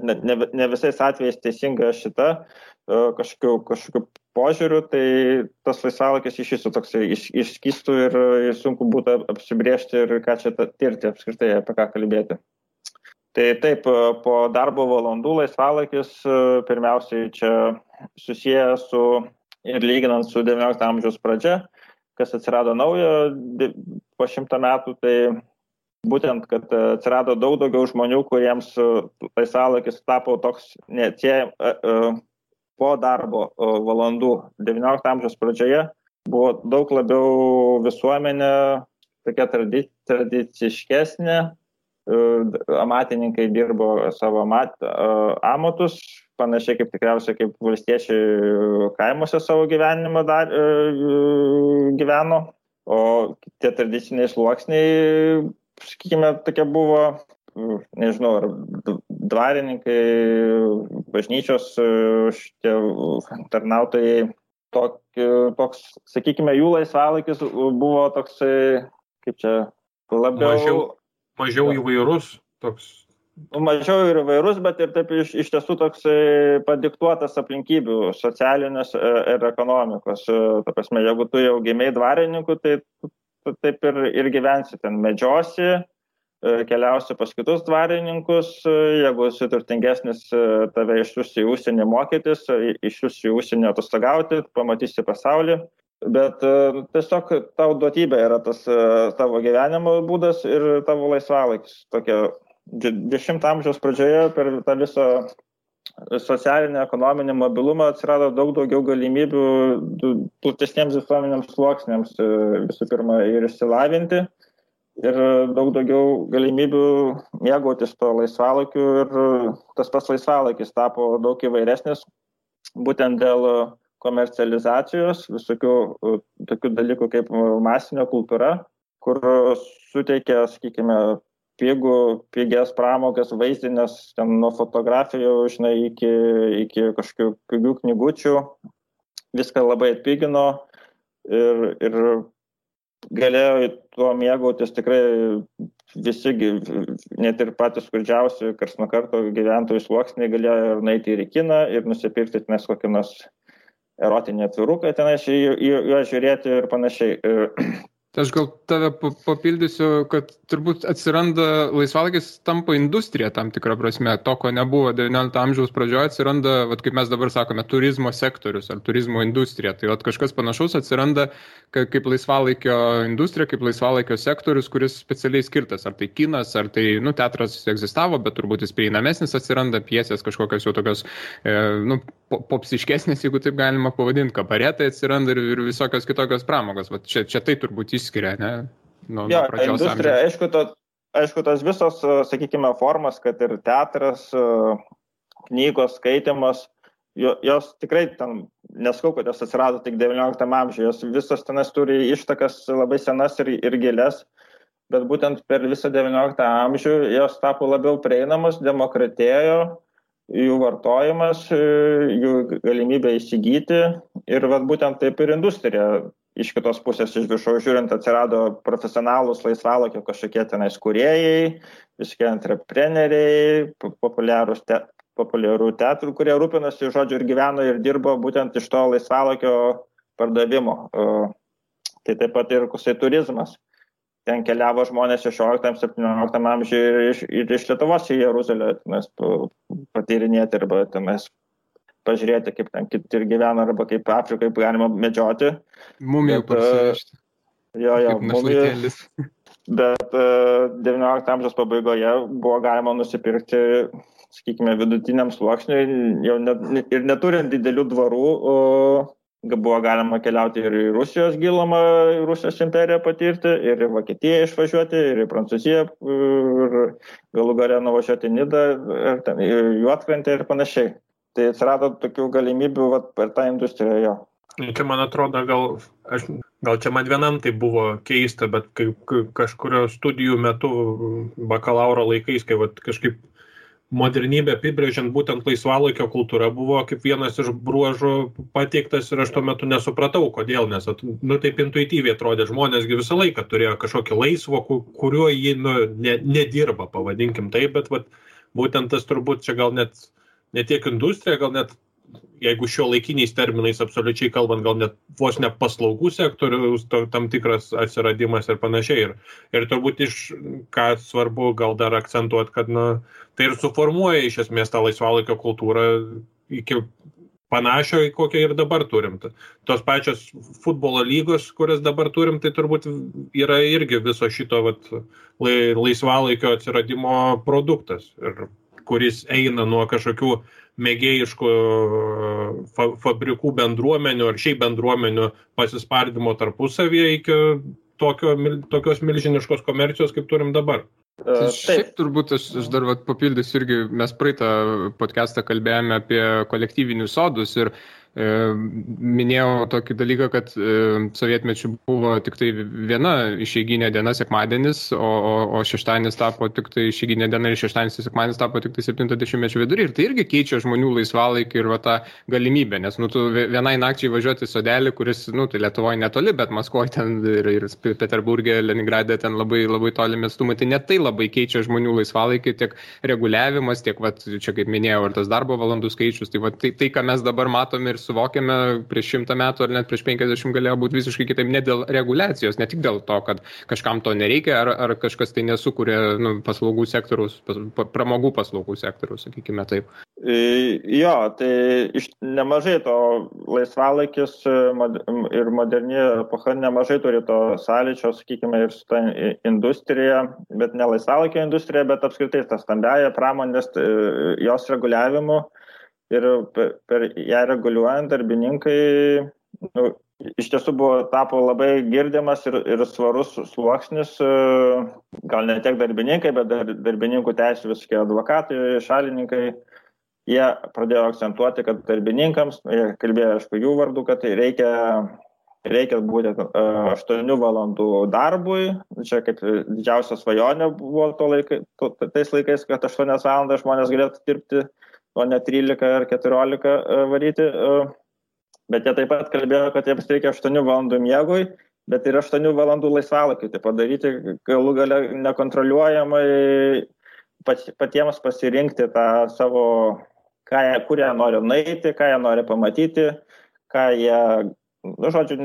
ne visais atvejais teisinga šita kažkokiu požiūriu, tai tas laisvalaikis iš viso toksai išskystų ir sunku būtų apsibrėžti ir ką čia tirti apskritai, apie ką kalbėti. Tai taip, po darbo valandų laisvalaikis pirmiausiai čia susijęs su ir lyginant su 19 amžiaus pradžia, kas atsirado naujo po 100 metų, tai būtent, kad atsirado daug daugiau žmonių, kuriems laisvalaikis tapo toks po darbo valandų 19 amžiaus pradžioje, buvo daug labiau visuomenė tokia tradiciškesnė. Amatininkai dirbo savo amatus, panašiai kaip tikriausiai kaip valstiečiai kaimuose savo gyvenimą gyveno, o tie tradiciniai sluoksniai, sakykime, tokie buvo, nežinau, ar dvarininkai, bažnyčios šitie tarnautojai, toks, sakykime, jų laisvalaikis buvo toksai, kaip čia, labiau... Mažiau įvairus toks. Mažiau ir įvairus, bet ir taip iš tiesų toks padiktuotas aplinkybių socialinės ir ekonomikos. Ta prasme, jeigu tu jau gimei dvarininku, tai taip ir gyvensi ten, medžiosi, keliausi pas kitus dvarininkus, jeigu esi turtingesnis, tave išsiųs į užsienį mokytis, išsiųs į užsienį atostogauti, pamatysi pasaulį. Bet tiesiog tau duotybė yra tas tavo gyvenimo būdas ir tavo laisvalaikis. Tokia 10 amžiaus pradžioje per tą visą socialinį, ekonominį mobilumą atsirado daug daugiau galimybių platesniems visuomenėms sluoksniams visų pirma ir išsilavinti ir daug daugiau galimybių mėgautis to laisvalaikiu ir tas pats laisvalaikis tapo daug įvairesnis būtent dėl komercializacijos, visokių tokių dalykų kaip masinė kultūra, kur suteikia, sakykime, pigias pramogas, vaizdinės, ten nuo fotografijų, žinai, iki kažkokių pigių knygučių, viską labai atpigino ir galėjo tuo mėgautis tikrai visi, net ir patys skurdžiausi, karts nuo karto gyventojų sluoksniai galėjo ir nueiti ir į kiną ir nusipirkti nes kokį nors erotinį atviruką tenais juos žiūrėti ir panašiai. Aš gal tave papildysiu, kad turbūt atsiranda laisvalaikis tampa industrija tam tikrą prasme. To, ko nebuvo 19 amžiaus pradžioje, atsiranda, kaip mes dabar sakome, turizmo sektorius ar turizmo industrija. Tai kažkas panašaus atsiranda kaip laisvalaikio industrija, kaip laisvalaikio sektorius, kuris specialiai skirtas. Ar tai kinas, ar tai teatras egzistavo, bet turbūt jis prieinamesnis atsiranda, pjesės kažkokios jau tokios popsiškesnės, jeigu taip galima pavadinti, kabaretai atsiranda ir visokios kitokios pramogos. Va, čia tai turbūt išskiria, ne? Nuo industrija, aišku, tos visos, sakykime, formas, kad ir teatras, knygos, skaitimas, jos tikrai ten, neskau, kad jos atsirado tik 19 amžiuje, jos visos tenas turi ištakas labai senas ir gilias, bet būtent per visą 19 amžių jos tapo labiau prieinamos, demokratėjo, jų vartojimas, jų galimybė įsigyti ir būtent taip ir industrija. Iš kitos pusės, iš viršaus žiūrint, atsirado profesionalūs laisvalaikio kažkokie tenais kūrėjai, visokie entrepreneriai, populiarų teatrų, kurie rūpinasi, žodžiu, ir gyveno ir dirbo būtent iš to laisvalaikio pardavimo. Tai taip pat ir kusai turizmas. Ten keliavo žmonės 16-17 amžiuje ir iš Lietuvos į Jeruzalę patyrinėti arba tenais pažiūrėti, kaip ten kiti ir gyvena, arba kaip Afrikai galima medžioti. Mumijų parsivežti. Jo, mumijų. Bet 19 amžiaus pabaigoje buvo galima nusipirkti, sakykime, vidutiniam sluoksniui, jau ir neturint didelių dvarų, buvo galima keliauti ir į Rusijos gilumą, Rusijos imperiją patirti, ir į Vokietiją išvažiuoti, ir į Prancūziją, ir galų gale nuvažiuoti į Nidą, į Juodkrantę ir panašiai. Tai atsirado tokių galimybių per tą industriją jo. Čia man atrodo, gal čia man vienam tai buvo keista, bet kažkurio studijų metu bakalauro laikais, kai kažkaip modernybė apibrėžiant būtent laisvalaikio kultūra buvo kaip vienas iš bruožų pateiktas ir aš tuo metu nesupratau, kodėl, nes taip intuityviai atrodė, žmonėsgi visą laiką turėjo kažkokį laisvo, kuriuo jį nedirba, pavadinkim taip, bet būtent tas turbūt čia gal net ne tiek industrija, gal net, jeigu šio laikiniais terminais absoliučiai kalbant, gal net vos ne paslaugų sektoriaus tam tikras atsiradimas ir panašiai. Ir turbūt ką svarbu gal dar akcentuoti, kad tai ir suformuoja iš esmės tą laisvalaikio kultūrą iki panašio, kokią ir dabar turim. Tos pačios futbolo lygos, kurias dabar turim, tai turbūt yra irgi viso šito laisvalaikio atsiradimo produktas, ir kuris eina nuo kažkokių mėgėjiškų fabrikų bendruomenių ar šiaip bendruomenių pasispardimo tarpusavyje iki tokios milžiniškos komercijos, kaip turim dabar. Šiaip turbūt aš dar papildysiu irgi, mes praeitą podcastą kalbėjome apie kolektyvinius sodus ir minėjau tokį dalyką, kad sovietmečių buvo tik tai viena išeiginė diena sekmadienis, o šeštadienis tapo tik tai išeiginė diena ir šeštadienis ir sekmadienis tapo tik tai 70-mečio vidury. Ir tai irgi keičia žmonių laisvalaikį ir tą galimybę, nes tu vienai nakčiai važiuoti į sodelį, kuris, tai Lietuvoje netoli, bet Maskvoje ten ir Peterburgė, Leningrade ten labai, labai tolimi atstumai. Tai net tai labai keičia žmonių laisvalaikį, tiek reguliavimas, tiek, čia kaip minėjau, ir tas darbo valandų skaičius. Tai ką mes dabar matome ir suvokiame prieš 100 metų ar net prieš 50 galėjo būti visiškai kitaip, ne dėl reguliacijos, ne tik dėl to, kad kažkam to nereikia, ar kažkas tai nesukuria paslaugų sektoriaus, pramogų paslaugų sektoriaus, sakykime taip. Jo, tai nemažai to laisvalaikis ir moderni epocha nemažai turi to sąlyčio, sakykime, ir su ta industrija, bet ne laisvalaikio industrija, bet apskritai ta stambiaja pramonės, jos reguliavimu. Ir per ją reguliuojant darbininkai iš tiesų tapo labai girdimas ir svarus sluoksnis, gal ne tiek darbininkai, bet darbininkų teisių visokie advokatai, šalininkai, jie pradėjo akcentuoti, kad darbininkams, jie kalbėjo aišku jų vardu, kad reikia būti 8 valandų darbui, čia kaip didžiausia svajonė buvo tais laikais, kad 8 valandas žmonės galėtų dirbti, o ne 13 ar 14 varyti, bet jie taip pat kalbėjo, kad jiems reikia 8 valandų miegui, bet ir 8 valandų laisvalaikiui, tai padaryti galų gale nekontroliuojamai patiems pasirinkti tą savo, kur jie nori nueiti, ką jie nori pamatyti, ką jie žodžiu,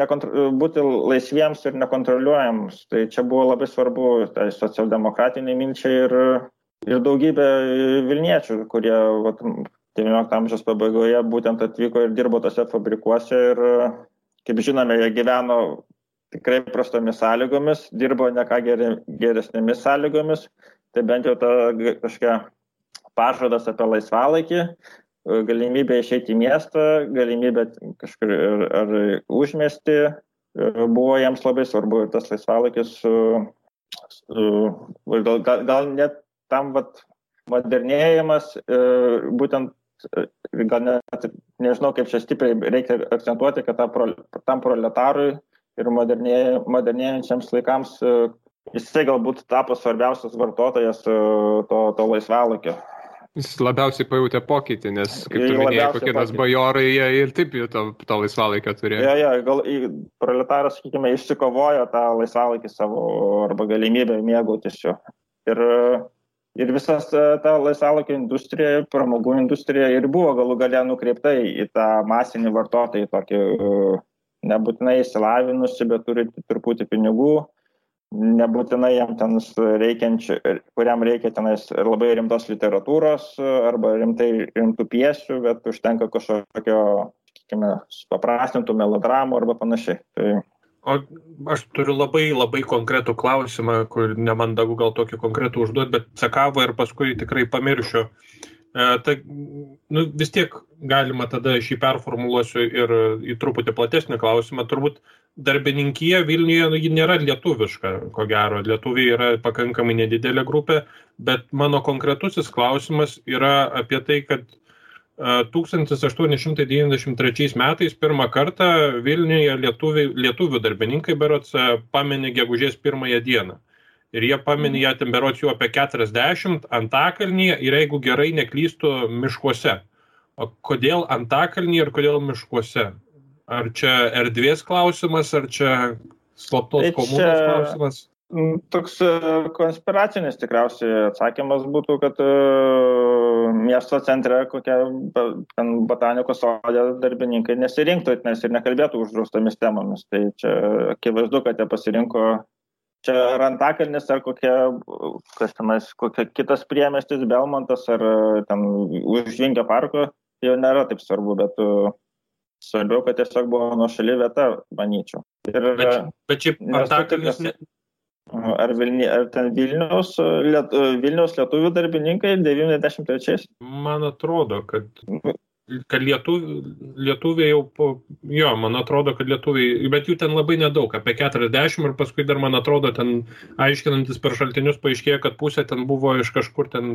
būti laisviems ir nekontroliuojams. Tai čia buvo labai svarbu tai socialdemokratiniai minčiai ir daugybė Vilniečių, kurie 19 amžiaus pabaigoje būtent atvyko ir dirbo tose fabrikuose ir, kaip žinome, jie gyveno tikrai prastomis sąlygomis, dirbo ne ką geresnėmis sąlygomis, tai bent jau ta kažkokia pažadas apie laisvalaikį, galimybė išeiti į miestą, galimybė kažkur ar užmiestį, buvo jiems labai svarbu ir tas laisvalaikis gal net tam modernėjimas, būtent gal net nežinau, kaip čia stipriai reikia akcentuoti, kad tam proletarui ir modernėjančiams laikams jisai galbūt tapo svarbiausias vartotojas to laisvalaikio. Jis labiausiai pajutė pokytį, nes, kaip tu minėjai, kokie tas bajorai, jie ir taip to laisvalaikio turėjo. Gal proletaras, sakykime, išsikovojo tą laisvalaikį savo arba galimybę mėgautis jo. Ir visas ta laisvalaikio industrija, pramogų industrija ir buvo galų gale nukreipta į tą masinį vartotoją, tokį nebūtinai įsilavinusi, bet turi truputį pinigų, nebūtinai jam ten kuriam reikia tenais labai rimtos literatūros arba rimtų pjesių, bet užtenka kažkokio, sakykime, paprastintų melodramų arba panašiai. O aš turiu labai konkretų klausimą, kur nemandagu gal tokį konkretų užduoti, bet sakavo ir paskui tikrai pamiršiu. Vis tiek galima tada šį performuluosiu ir į truputį platesnį klausimą. Turbūt darbininkija Vilniuje ji nėra lietuviška, ko gero. Lietuviai yra pakankamai nedidelė grupė, bet mano konkretusis klausimas yra apie tai, kad 1893 metais pirmą kartą Vilniuje lietuvių darbininkai berods pamini gegužės 1 dieną. Ir jie pamini ją ten berods jau apie 40 Antakalnyje ir jeigu gerai neklystu miškuose. O kodėl Antakalnyje ir kodėl miškuose? Ar čia erdvės klausimas, ar čia slaptos komunos klausimas? Toks konspiracinis tikriausiai atsakymas būtų, kad miesto centre kokia botanikos sode darbininkai nesirinktų, nes ir nekalbėtų uždraustomis temomis. Tai čia akivaizdu, kad jie pasirinko čia ar Antakalnis, ar kokia kitas priemiestis, Belmontas, ar ten už Vingio parko, jau nėra taip svarbu, bet svarbiau, kad tiesiog buvo nuošali vieta, manyčiau. Bet šiaip Antakalnis... Ar ten Vilniaus lietuvių darbininkai 93? Man atrodo, kad lietuviai jau man atrodo, kad lietuviai, bet jų ten labai nedaug, apie 40 ir paskui dar, man atrodo, ten aiškinantis per šaltinius paaiškėjo, kad pusė ten buvo iš kažkur ten,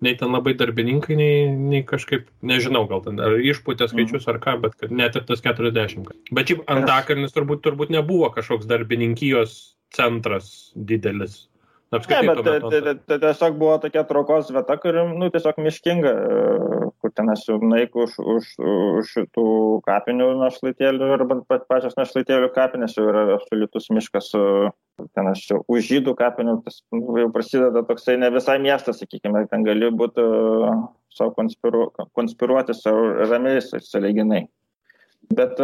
nei ten labai darbininkai, nei kažkaip, nežinau, gal ten ar išpūtė skaičius ar ką, bet kad net ir tas 40. Bet šiaip Antakalnis turbūt nebuvo kažkoks darbininkijos centras didelis. Tai tiesiog buvo tokia traukos vieta, kuri, tiesiog miškinga, kur ten esu naiku už šitų kapinių našlaitėlių arba pačios našlaitėlių kapinės jau yra absoliutus miškas, ten esu už žydų kapinių, tas jau prasideda toksai ne visai miestas, sakykime, ten gali būti savo konspiruoti savo ramiais sąlyginai. Bet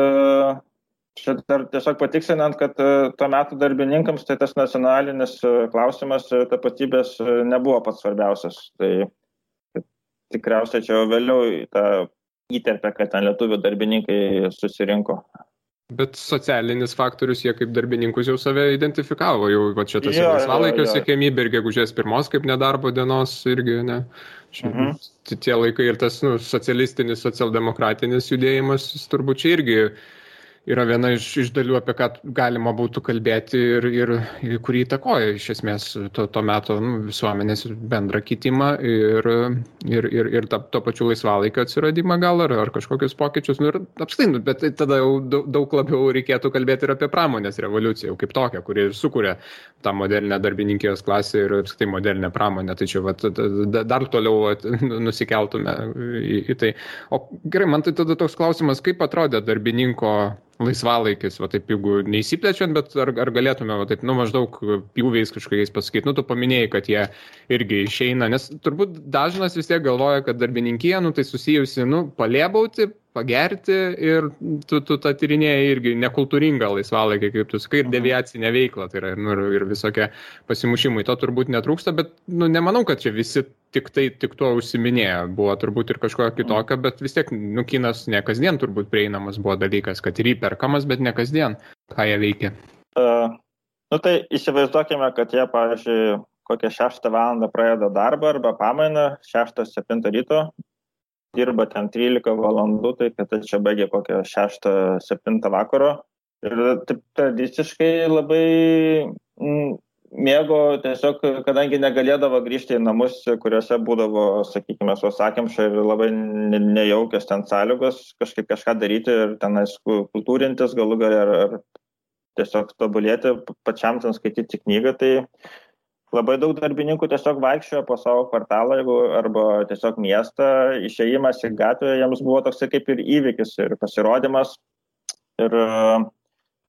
čia dar tiesiog patiksinant, kad tuo metu darbininkams tai tas nacionalinis klausimas tapatybės nebuvo pats svarbiausias. Tai tikriausiai čia vėliau tą įterpė, kad ten lietuvių darbininkai susirinko. Bet socialinis faktorius, jie kaip darbininkus jau save identifikavo, jau čia tas laisvalaikio siekiamybė ir gegužės 1 kaip nedarbo dienos irgi, ne? Tie laikai ir tas socialistinis, socialdemokratinis judėjimas, turbūt čia irgi yra viena iš dalių, apie ką galima būtų kalbėti ir kurį įtakoja iš esmės to meto visuomenės bendrą kitimą ir to pačiu laisvalaikio atsiradimą gal ar kažkokius pokyčius. Ir apskritai, bet tada jau daug labiau reikėtų kalbėti ir apie pramonės revoliuciją, jau kaip tokią, kuri sukuria tą modernę darbininkijos klasę ir apskritai modernę pramonę. Tai čia dar toliau nusikeltume į tai. O gerai, man tai tada toks klausimas, kaip atrodė darbininko laisvalaikis, va taip, jeigu neįsiplečiant, bet ar galėtume, va taip, maždaug pjūviais kažkokiais pasakyti, tu paminėjai, kad jie irgi išeina, nes turbūt dažnas vis tiek galvoja, kad darbininkija, tai susijusi, palėbauti, pagerti ir tu tą tyrinėjai irgi nekultūringą laisvalaikį, kaip tu sakai, ir deviacinę veiklą, tai yra ir visokie pasimušimai, to turbūt netrūksta, bet nemanau, kad čia visi tik tuo užsiminėjo, buvo turbūt ir kažko kitokio, bet vis tiek kinas ne kasdien turbūt prieinamas buvo dalykas, kad ir įperkamas, bet ne kasdien, ką jie veikia. Tai įsivaizduokime, kad jie, pavyzdžiui, kokią 6 valandą pradeda darbą arba pamainą, 6-7 ryto, dirba ten 13 valandų, tai kad čia baigė kokią 6-7 vakaro. Ir taip tradiciškai labai mėgo tiesiog, kadangi negalėdavo grįžti į namus, kuriuose būdavo, sakykime, sausakimša ir labai nejaukios ten sąlygos, kažką daryti ir tenais kultūrintis galų gale ar tiesiog tobulėti, pačiam ten skaityti knygą, tai labai daug darbininkų tiesiog vaikščiojo po savo kvartalą arba tiesiog miestą, išėjimas į gatvę, jiems buvo toksai kaip ir įvykis ir pasirodymas. Ir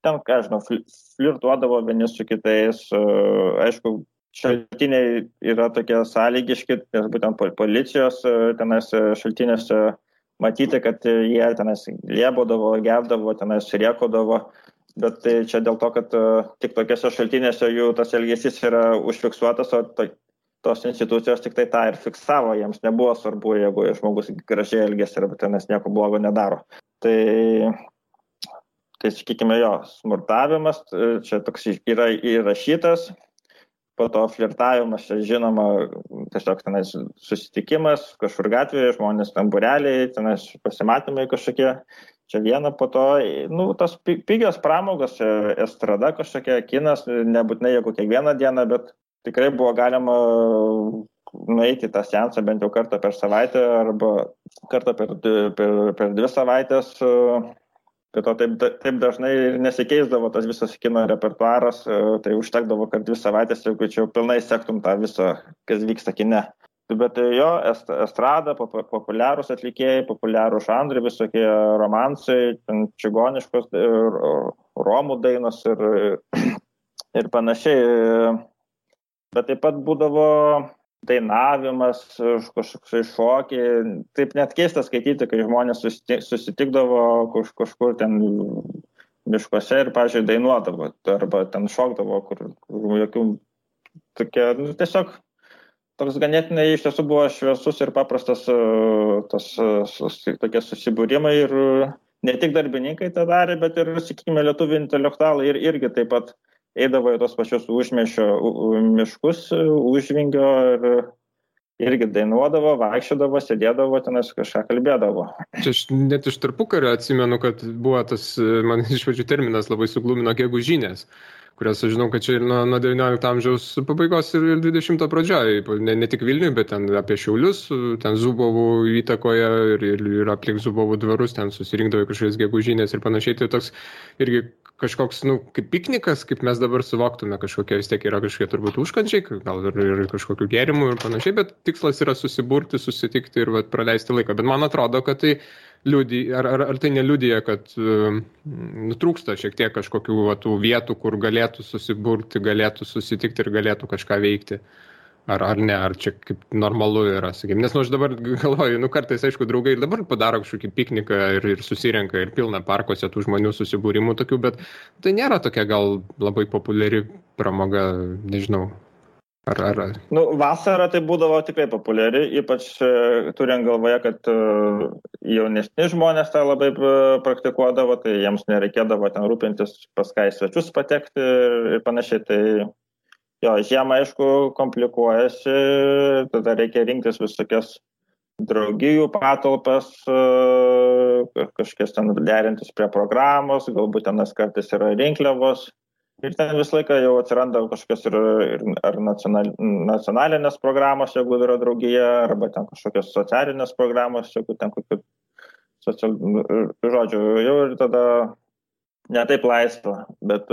ten, ką žinau, flirtuodavo vieni su kitais. Aišku, šaltiniai yra tokie sąlygiški, nes būtent policijos tenais šaltinėse matyti, kad jie tenais liebodavo, gerdavo, tenais rėkodavo. Bet tai čia dėl to, kad tik tokiose šaltinėse jų tas elgesys yra užfiksuotas, o tos institucijos tik tai tą ir fiksavo, jiems nebuvo svarbu, jeigu žmogus gražiai elgesi arba tenais nieko blogo nedaro. Tai sakykime, jo, smurtavimas čia toks yra įrašytas, po to flirtavimas, čia žinoma, tiesiog tenais susitikimas, kažkur gatvėje, žmonės ten būreliai, tenais pasimatymai kažkokie. Čia viena, po to, tos pigios pramogos, estrada kažkokia, kinas, nebūtinai jeigu kiekvieną dieną, bet tikrai buvo galima nueiti tą seansą bent jau kartą per savaitę arba kartą per 2 savaitės. Prie to taip dažnai nesikeisdavo tas visas kino repertuaras, tai užtekdavo, kad 2 savaitės, jeigu čia pilnai sektum tą visą, kas vyksta kine. Bet jo, estrada, populiarūs atlikėjai, populiarūs žanrai, visokie romansai, čigoniškos, romų dainos ir panašiai. Bet taip pat būdavo dainavimas, kažkoks šokiai. Taip net keista skaityti, kai žmonės susitikdavo kažkur ten miškuose ir, pavyzdžiui, dainuodavo arba ten šokdavo, kur jokių tokie, tiesiog toks ganėtinai iš tiesų buvo šviesus ir paprastas tokie susibūrimai ir ne tik darbininkai tą darė, bet ir, sakykime, lietuvių intelektualai irgi taip pat eidavo į tos pačius užmiesčio miškus, užvingio ir irgi dainuodavo, vaikščiodavo, sėdėdavo, tenais kažką kalbėdavo. Čia aš net iš tarpukario atsimenu, kad buvo tas, man iš pradžių terminas labai suglumino gegužinės, kurias aš žinau, kad čia nuo 19 amžiaus pabaigos ir 20 pradžioje, ne tik Vilniuje, bet ten apie Šiaulius, ten Zubovų įtakoje ir aplink Zubovų dvarus, ten susirinkdavo kažkokios gegužinės ir panašiai. Tai toks irgi kažkoks, kaip piknikas, kaip mes dabar suvoktume, kažkokie vis tiek yra kažkokie turbūt užkandžiai, gal ir kažkokių gėrimų ir panašiai, bet tikslas yra susiburti, susitikti ir praleisti laiką. Bet man atrodo, kad tai ar tai neliudija, kad trūksta šiek tiek kažkokių tų vietų, kur galėtų susiburti, galėtų susitikti ir galėtų kažką veikti. Ar ne, ar čia kaip normalu yra, sakykime. Nes aš dabar galvoju, kartais, aišku, draugai ir dabar padaro kažkokį pikniką ir susirenka ir pilna parkuose tų žmonių susibūrimų tokių, bet tai nėra tokia gal labai populiari pramoga, nežinau. Vasarą tai būdavo tikrai populiari, ypač turint galvoje, kad jaunesni žmonės tą labai praktikuodavo, tai jiems nereikėdavo ten rūpintis pas ką į svečius patekti ir panašiai. Tai jo, žiemą, aišku, komplikuojasi, tada reikia rinktis visokias draugijų patalpas, kažkas ten derintis prie programos, galbūt tenas kartais yra rinkliavos. Ir ten visą laiką jau atsiranda kažkokios ar nacionalinės programos, jeigu yra draugija, arba ten kažkokios socialinės programos, jeigu ten kokių žodžių, jau ir tada ne taip laisva, bet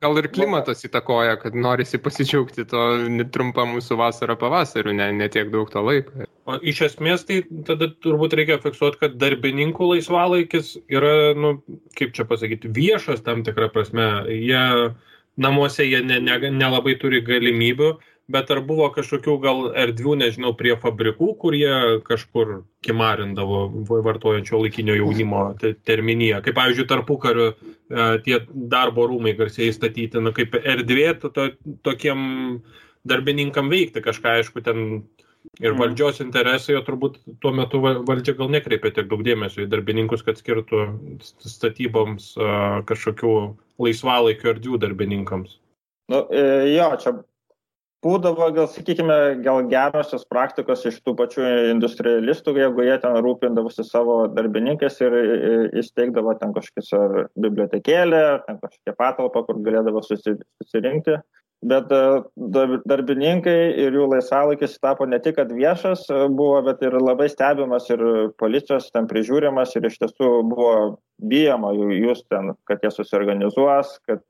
gal Gal ir klimatas įtakoja, kad norisi pasidžiaugti to trumpą mūsų vasarą pavasariu, ne tiek daug to laiko. O iš esmės tai tada turbūt reikia fiksuoti, kad darbininkų laisvalaikis yra, kaip čia pasakyti, viešas tam tikrą prasme. Namuose jie nelabai turi galimybių, bet ar buvo kažkokių gal erdvių, nežinau, prie fabrikų, kur jie kažkur kimarindavo vartojančio laikinio jaunimo terminiją. Kaip, pavyzdžiui, tarpukariu tie darbo rūmai garsiai statyti, kaip erdvė tokiem darbininkam veikti kažką, aišku, ten ir valdžios interesai, o turbūt tuo metu valdžia gal nekreipia tiek daug dėmesio į darbininkus, kad skirtų statyboms kažkokių laisvalaikio erdvių darbininkams. Čia būdavo, sakykime, gerosios praktikos iš tų pačių industrialistų, jeigu jie ten rūpindavosi savo darbininkais ir įsteigdavo ten kažkokią bibliotekėlę, ten kažkokią patalpą, kur galėdavo susirinkti. Bet darbininkai ir jų laisvalaikis tapo ne tik, kad viešas buvo, bet ir labai stebimas ir policijos ten prižiūrimas ir iš tiesų buvo bijama jūs ten, kad jie susiorganizuos, kad,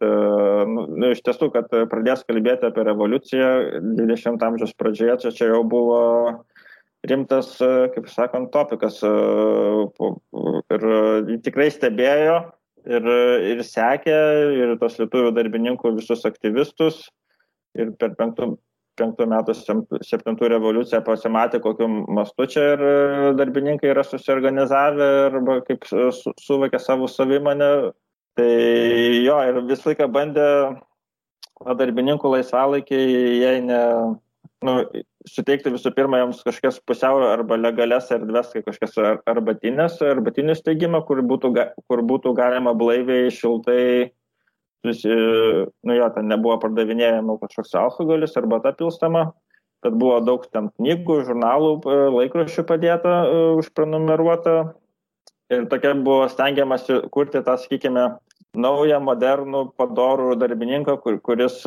iš tiesų, kad pradės kalbėti apie revoliuciją 20 amžiaus pradžioje, čia jau buvo rimtas, kaip sakant, topikas ir tikrai stebėjo ir sekė ir tos lietuvių darbininkų visus aktyvistus. Ir per 5 metų 7 revoliuciją pasimatė, kokiu mastu čia ir darbininkai yra susiorganizavę arba kaip suvokė savo savimonę. Tai ir visą laiką bandė darbininkų laisvalaikį, jei suteikti visų pirma jiems kažkokias pusiau arba legalias erdves, kai kažkas arbatinių steigimą, kur būtų galima blaiviai, šiltai ten nebuvo pardavinėjama kažkoks alkoholis arba ta pilstama, tad buvo daug ten knygų, žurnalų, laikraščių padėta, užprenumeruota ir tokia buvo stengiamasi kurti tą, sakykime, naują, modernų, padorų darbininką, kuris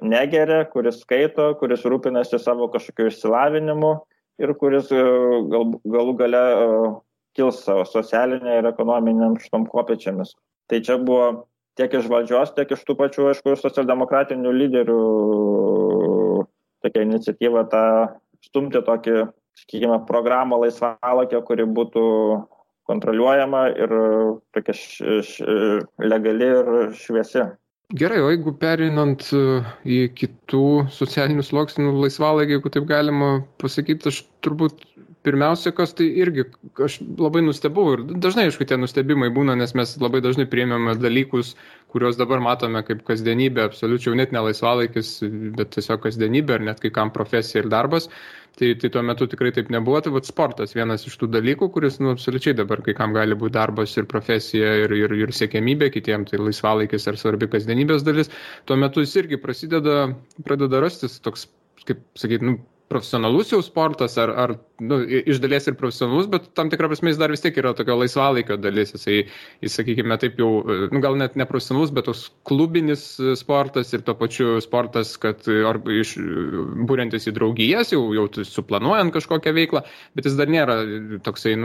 negeria, kuris skaito, kuris rūpinasi savo kažkokiu išsilavinimu ir kuris galų gale kils savo socialinė ir ekonominiam šitom kopėčiamis. Tai čia buvo tiek iš valdžios, tiek iš tų pačių, aišku, socialdemokratinių lyderių tokia iniciatyva stumti tokį, sakykime, programą laisvalaikio, kuri būtų kontroliuojama ir tokia legali ir šviesi. Gerai, o jeigu pereinant į kitų socialinių sluoksnių laisvalaikį, jeigu taip galima pasakyti, aš turbūt pirmiausia, kas tai irgi, aš labai nustebau ir dažnai, aišku, tie nustebimai būna, nes mes labai dažnai priėmėme dalykus, kuriuos dabar matome kaip kasdienybė, absoliučiai net ne laisvalaikis, bet tiesiog kasdienybė ir net kai kam profesija ir darbas. Tai tuo metu tikrai taip nebuvo, tai sportas vienas iš tų dalykų, kuris absoliučiai dabar kai kam gali būti darbas ir profesija ir siekiamybė, kitiems tai laisvalaikis ar svarbi kasdienybės dalis. Tuo metu jis irgi pradeda rastis toks, kaip sakyti, profesionalus jau sportas, ar iš dalies ir profesionalus, bet tam tikrą prasme jis dar vis tiek yra tokio laisvalaikio dalis. Jis sakykime, taip jau, gal net ne profesionalus, bet toks klubinis sportas ir tuo pačiu sportas, kad būriantis į draugijas, jau suplanuojant kažkokią veiklą, bet jis dar nėra toksai,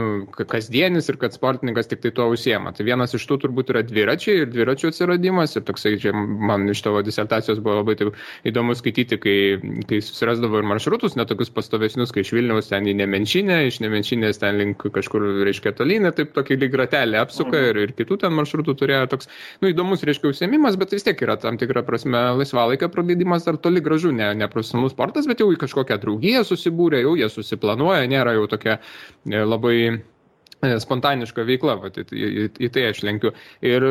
kasdienis ir kad sportininkas tik tai tuo užsiema. Tai vienas iš tų turbūt yra dviračiai ir dviračių atsiradimas ir toksai, čia man iš tavo disertacijos buvo labai taip įdomu skaityti, kai susirasdavo ir maršrutus, netokius pastovesnius, kai iš Vilniaus ten į Nemenčinę, iš Nemenčinės ten link kažkur, reiškia, tolyn, taip tokį lyg ratelį apsuka ir kitų ten maršrutų turėjo toks, įdomus, reiškia, užsiėmimas, bet vis tiek yra tam tikra prasme laisvalaikio praleidimas ar toli gražu, ne profesionalus sportas, bet jau į kažkokią draugiją susibūrė, jau jie susiplanuoja, nėra jau tokia labai spontaniška veikla, į tai aš lenkiu. Ir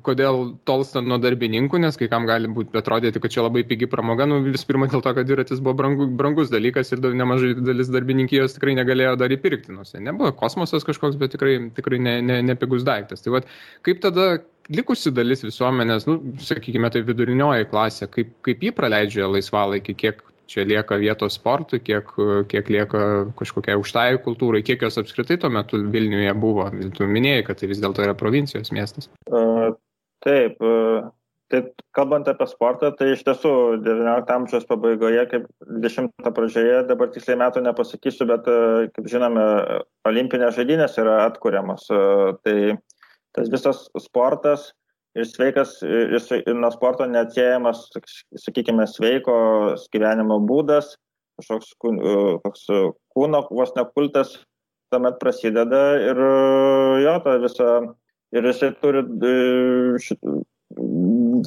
kodėl tolstant nuo darbininkų, nes kai kam gali būti atrodyti, kad čia labai pigi pramoga, vis pirma dėl to, kad dviratis buvo brangus dalykas ir nemažai dalis darbininkijos tikrai negalėjo dar įpirkti. Nebuvo kosmosas kažkoks, bet tikrai ne pigus daiktas. Tai kaip tada likusi dalis visuomenės, sakykime, tai vidurinioji klasė, kaip jį praleidžia laisvalaikį, kiek čia lieka vietos sportui, kiek lieka kažkokiai aukštai kultūrai, kiek jos apskritai tuo metu Vilniuje buvo. Tu minėjai, kad tai vis dėlto yra provincijos miestas. Taip, tai kalbant apie sportą, tai iš tiesų 19 amžiaus pabaigoje, kaip 20 pradžioje, dabar tiksliai metų nepasakysiu, bet kaip žinome, olimpinės žaidynės yra atkuriamos. Tai tas visas sportas ir sveikas, ir nuo sporto neatsiejamas, sakykime, sveiko gyvenimo būdas, kažkoks kūno vos nekultas tuomet prasideda ir jo, ta visa, ir jisai turi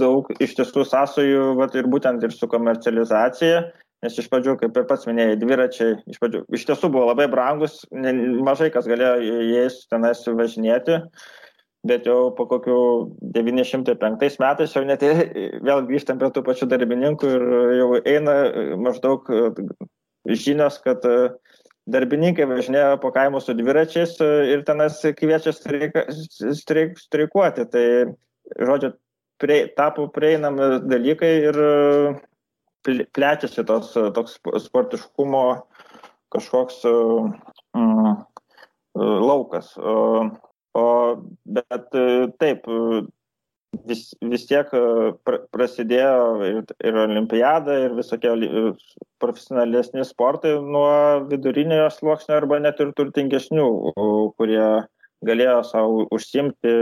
daug iš tiesų sąsajų, ir būtent ir su komercializacija, nes iš pradžių, kaip ir pats minėjai, dviračiai iš tiesų buvo labai brangus, mažai kas galėjo jais tenais važinėti, bet jau po kokių 905 metais jau net vėl grįžtam prie tų pačių darbininkų ir jau eina maždaug žinios, kad darbininkai važinėjo po kaimus su dviračiais ir tenais kviečia streikuoti. Tai, žodžiu, tapo prieinami dalykai ir plečiasi toks sportiškumo kažkoks laukas. Bet taip, vis tiek prasidėjo ir olimpiada, ir visokie profesionalesni sportai nuo viduriniojo sluoksnio arba net ir turtingesnių, kurie galėjo savo užsiimti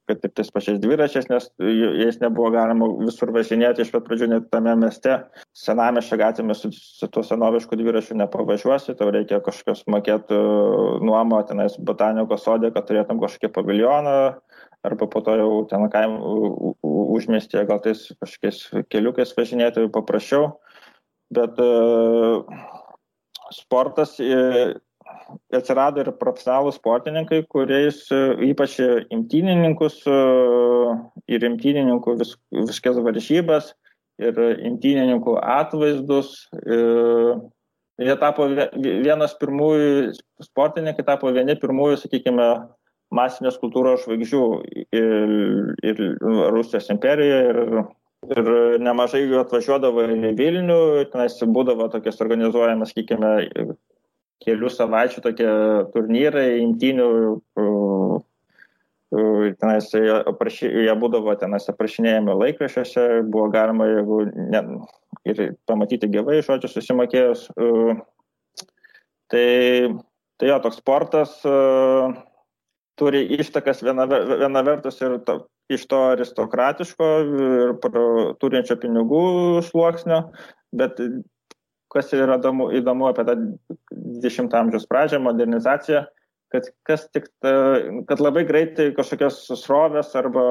kad ir tais pačiais dviračiais, nes jais nebuvo galima visur važinėti iš pat pradžių, net tame mieste. Senamiesčio gatvėmis su tuo senovišku dviračiu nepavažiuosi, tau reikia kažkokios mokėti nuomą tenais botanikos sode, kad turėtum kažkokį paviljoną, arba po to jau ten užmiestyje gal tais kažkokiais keliukais važinėti paprasčiau. Bet sportas atsirado ir profesionalūs sportininkai, kuriais ypač imtynininkus ir imtynininkų viskas varžybas ir imtynininkų atvaizdus. Jie tapo vienas pirmųjų, sportininkai tapo vieni pirmųjų, sakykime, masinės kultūros žvaigždžių ir Rusijos imperijoje ir nemažai jų atvažiuodavo į Vilnių, tenais būdavo tokias organizuojamas, sakykime, kelių savaičių tokie turnyrai, imtynių, jie būdavo tenais aprašinėjami laikraščiuose, buvo galima ir pamatyti gyvai, žodžiu, susimokėjus. Tai jo, toks sportas turi ištakas viena vertus ir iš to aristokratiško ir turinčio pinigų sluoksnio, bet kas yra įdomu apie tą 20 amžiaus pradžią, modernizaciją, kad labai greitai kažkokios srovės arba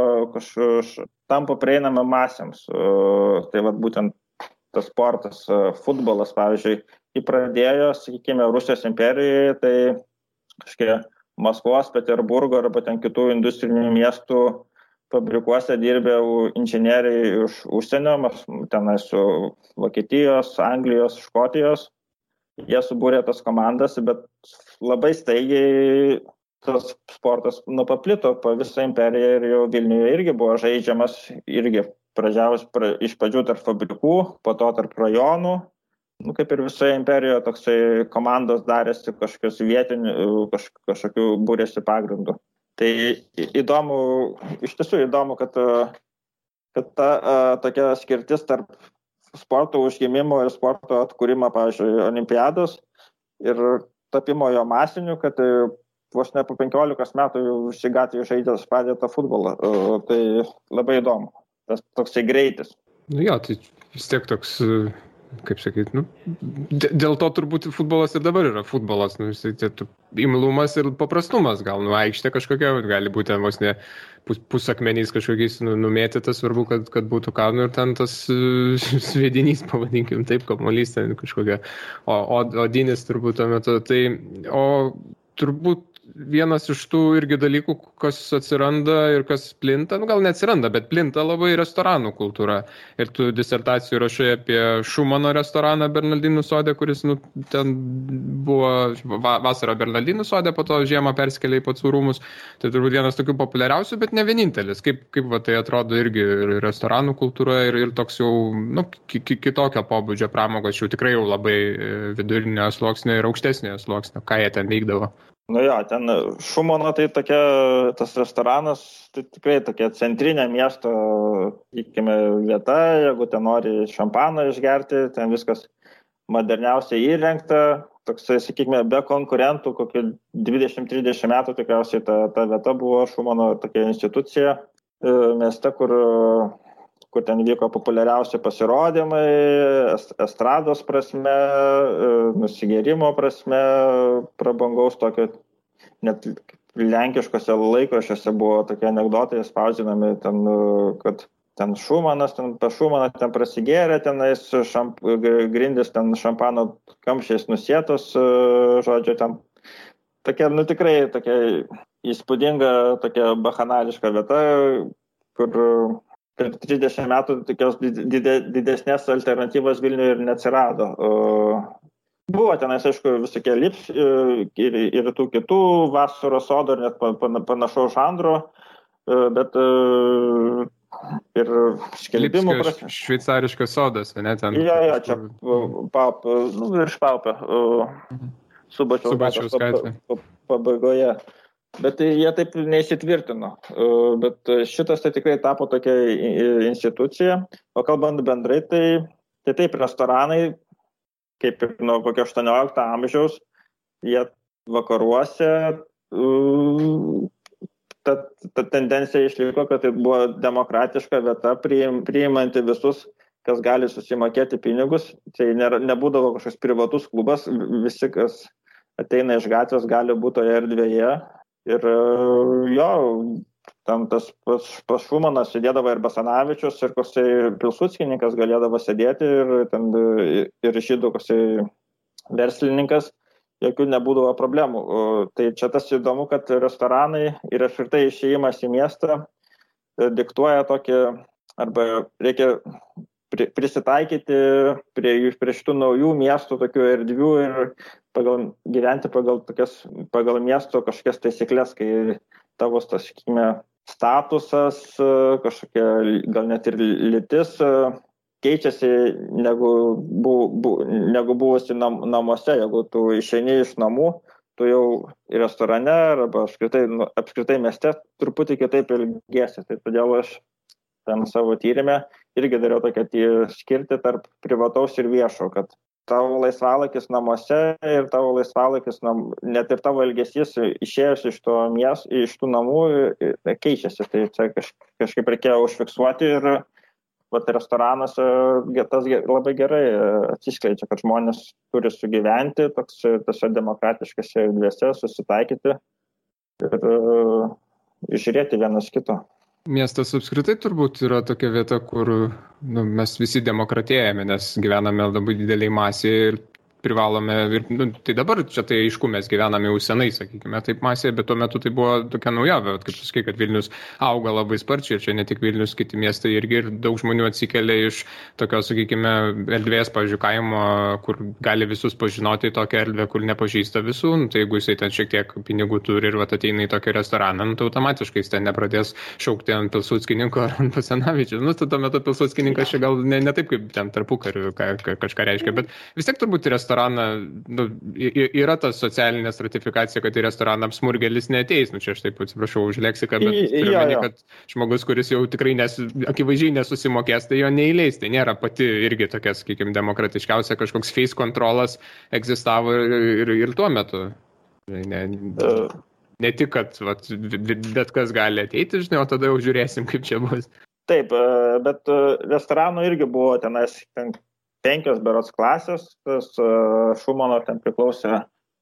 tampa prieinama masėms. Tai būtent tas sportas, futbolas, pavyzdžiui, pradėjo, sakykime, Rusijos imperijoje, tai kažkiek Maskvos, Peterburgo arba ten kitų industrinių miestų fabrikuose dirbė inžinieriai iš užsienio, tenai su Vokietijos, Anglijos, Škotijos. Jie subūrė tas komandas, bet labai staigiai tas sportas paplito po visą imperiją ir jau Vilniuje irgi buvo žaidžiamas, irgi pradžiavus iš pradžių tarp fabrikų, po to tarp rajonų. Kaip ir visoje imperijoje toksai komandos darėsi kažkokios vietinių, kažkokių būrėsi pagrindų. Tai iš tiesų įdomu, kad ta tokia skirtis tarp sporto užgimimo ir sporto atkūrimo, pavyzdžiui, olimpiados ir tapimo jo masiniu, kad vos ne po 15 metų jau šį gatvį žaidęs pradėta futbolą. Tai labai įdomu, tas toksai greitis. Jo, tai vis tiek toks, kaip sakyti, dėl to turbūt futbolas ir dabar yra futbolas, imlumas ir paprastumas, gal aikštė kažkokia, gali būti vos ne pusakmeniais kažkokiais numėtytas, svarbu, kad būtų ką, ir ten tas sviedinys, pavadinkim taip, kamuolys ten kažkokia, odinis turbūt tuo metu, o turbūt vienas iš tų irgi dalykų, kas atsiranda ir kas plinta, gal neatsiranda, bet plinta labai restoranų kultūra. Ir tu disertacijų rašai apie Šumano restoraną Bernardinų sode, kuris ten buvo vasarą Bernardinų sode, po to žiemą persikėlė į Pacų rūmus. Tai turbūt vienas tokių populiariausių, bet ne vienintelis. Kaip tai atrodo irgi restoranų kultūra ir toks jau kitokio pobūdžio pramogos, jau tikrai jau labai vidurinio sluoksnio ir aukštesnio sluoksnio, ką jie ten veikdavo. Ten Šumano tai tas restoranas, tai tikrai tokia centrinė miesto, sakykime, vieta, jeigu ten nori šampaną išgerti, ten viskas moderniausiai įrengta, toksai, sakykime, be konkurentų, kokį 20-30 metų tikriausiai ta vieta buvo Šumano tokia institucija mieste, kur ten vyko populiariausi pasirodymai, estrados prasme, nusigėrimo prasme, prabangaus tokio, net lenkiškose laikraščiuose buvo tokie anekdotai spausdinami, ten, kad ten Šumanas, ten pas Šumaną ten prasigėrė, tenais grindis ten šampano kamščiais nusėtos, žodžiu, ten tokia, tikrai tokia įspūdinga, tokia bakanališka vieta, kur per 30 metų tokios didesnės alternatyvos Vilniuje ir neatsirado. Buvo tenais, aišku, visokie lips ir tų kitų vasaros sodų ir net panašaus žanro, bet ir skelbimų prasme. Šveicariškas sodas, ne ten? Jo, čia virš Paupio, Subačiaus gatvė pabaigoje. Bet jie taip neįsitvirtino. Bet šitas tai tikrai tapo tokia institucija. O kalbant bendrai, tai taip restoranai, kaip ir nuo kokio 18 amžiaus, jie vakaruose ta tendencija išliko, kad tai buvo demokratiška vieta, priimanti visus, kas gali susimokėti pinigus. Tai nebūdavo kažkoks privatus klubas, visi, kas ateina iš gatvės, gali būti toje erdvėje. Ir jo, tam tas pas Šumaną sėdėdavo ir Basanavičius, ir koksai Pilsudskininkas galėdavo sėdėti, ir žydų koksai verslininkas. Jokių nebūdavo problemų. Tai čia tas įdomu, kad restoranai ir apskritai išėjimas į miestą diktuoja tokį, arba reikia prisitaikyti prie šitų naujų miestų, tokių erdvių ir gyventi pagal miesto kažkokias taisyklės, kai tavo, sakykime, statusas, kažkokia gal net ir lytis keičiasi negu buvusi namuose. Jeigu tu išeini iš namų, tu jau į restorane arba apskritai mieste truputį kitaip elgiesi. Tai todėl aš tam savo tyrime irgi dariau tokią skirtį tarp privataus ir viešo, kad tavo laisvalakis namuose ir tavo laisvalakis, net ir tavo elgesys išėjus iš tų namų keičiasi. Tai čia kažkaip reikėjo užfiksuoti ir restoranuose tas labai gerai atsiskleidžia, kad žmonės turi sugyventi tose demokratiškose erdvėse, susitaikyti ir žiūrėti vienas kito. Miestas apskritai turbūt yra tokia vieta, kur mes visi demokratėjame, nes gyvename labai dideliai masėje ir privalome, tai dabar čia tai aišku, mes gyvename jau senai, sakykime, taip masėje, bet tuo metu tai buvo tokia naujovė, kaip tu sakai, kad Vilnius auga labai sparčiai ir čia ne tik Vilnius, kiti miestai irgi ir daug žmonių atsikelia iš tokios, sakykime, erdvės, pavyzdžiui, kaimo, kur gali visus pažinoti, tokią erdvę, kur nepažįsta visų, tai jeigu jisai ten šiek tiek pinigų turi ir ateina į tokį restoraną, tai automatiškai jis ten nepradės šaukti ant Pilsudskininko ar ant Basanavičiaus. Tuo metu Pilsudskininkas čia gal ne taip, kaip ten tarpukariu kažką reiškia, bet vis tiek turbūt restoraną, yra ta socialinė stratifikacija, kad į restoraną smurgelis neateis. Čia aš taip atsiprašau už leksiką, bet turiu meni, kad žmogus, kuris jau tikrai akivaizdžiai nesusimokės, tai jo neįleis. Tai nėra pati irgi tokia, sakykime, demokratiškiausia, kažkoks face kontrolas egzistavo ir tuo metu. Ne tik, kad bet kas gali ateiti, žinai, o tada jau žiūrėsim, kaip čia bus. Taip, bet restoranų irgi buvo tenais 5 berods klasės, tas Šumano ten priklausė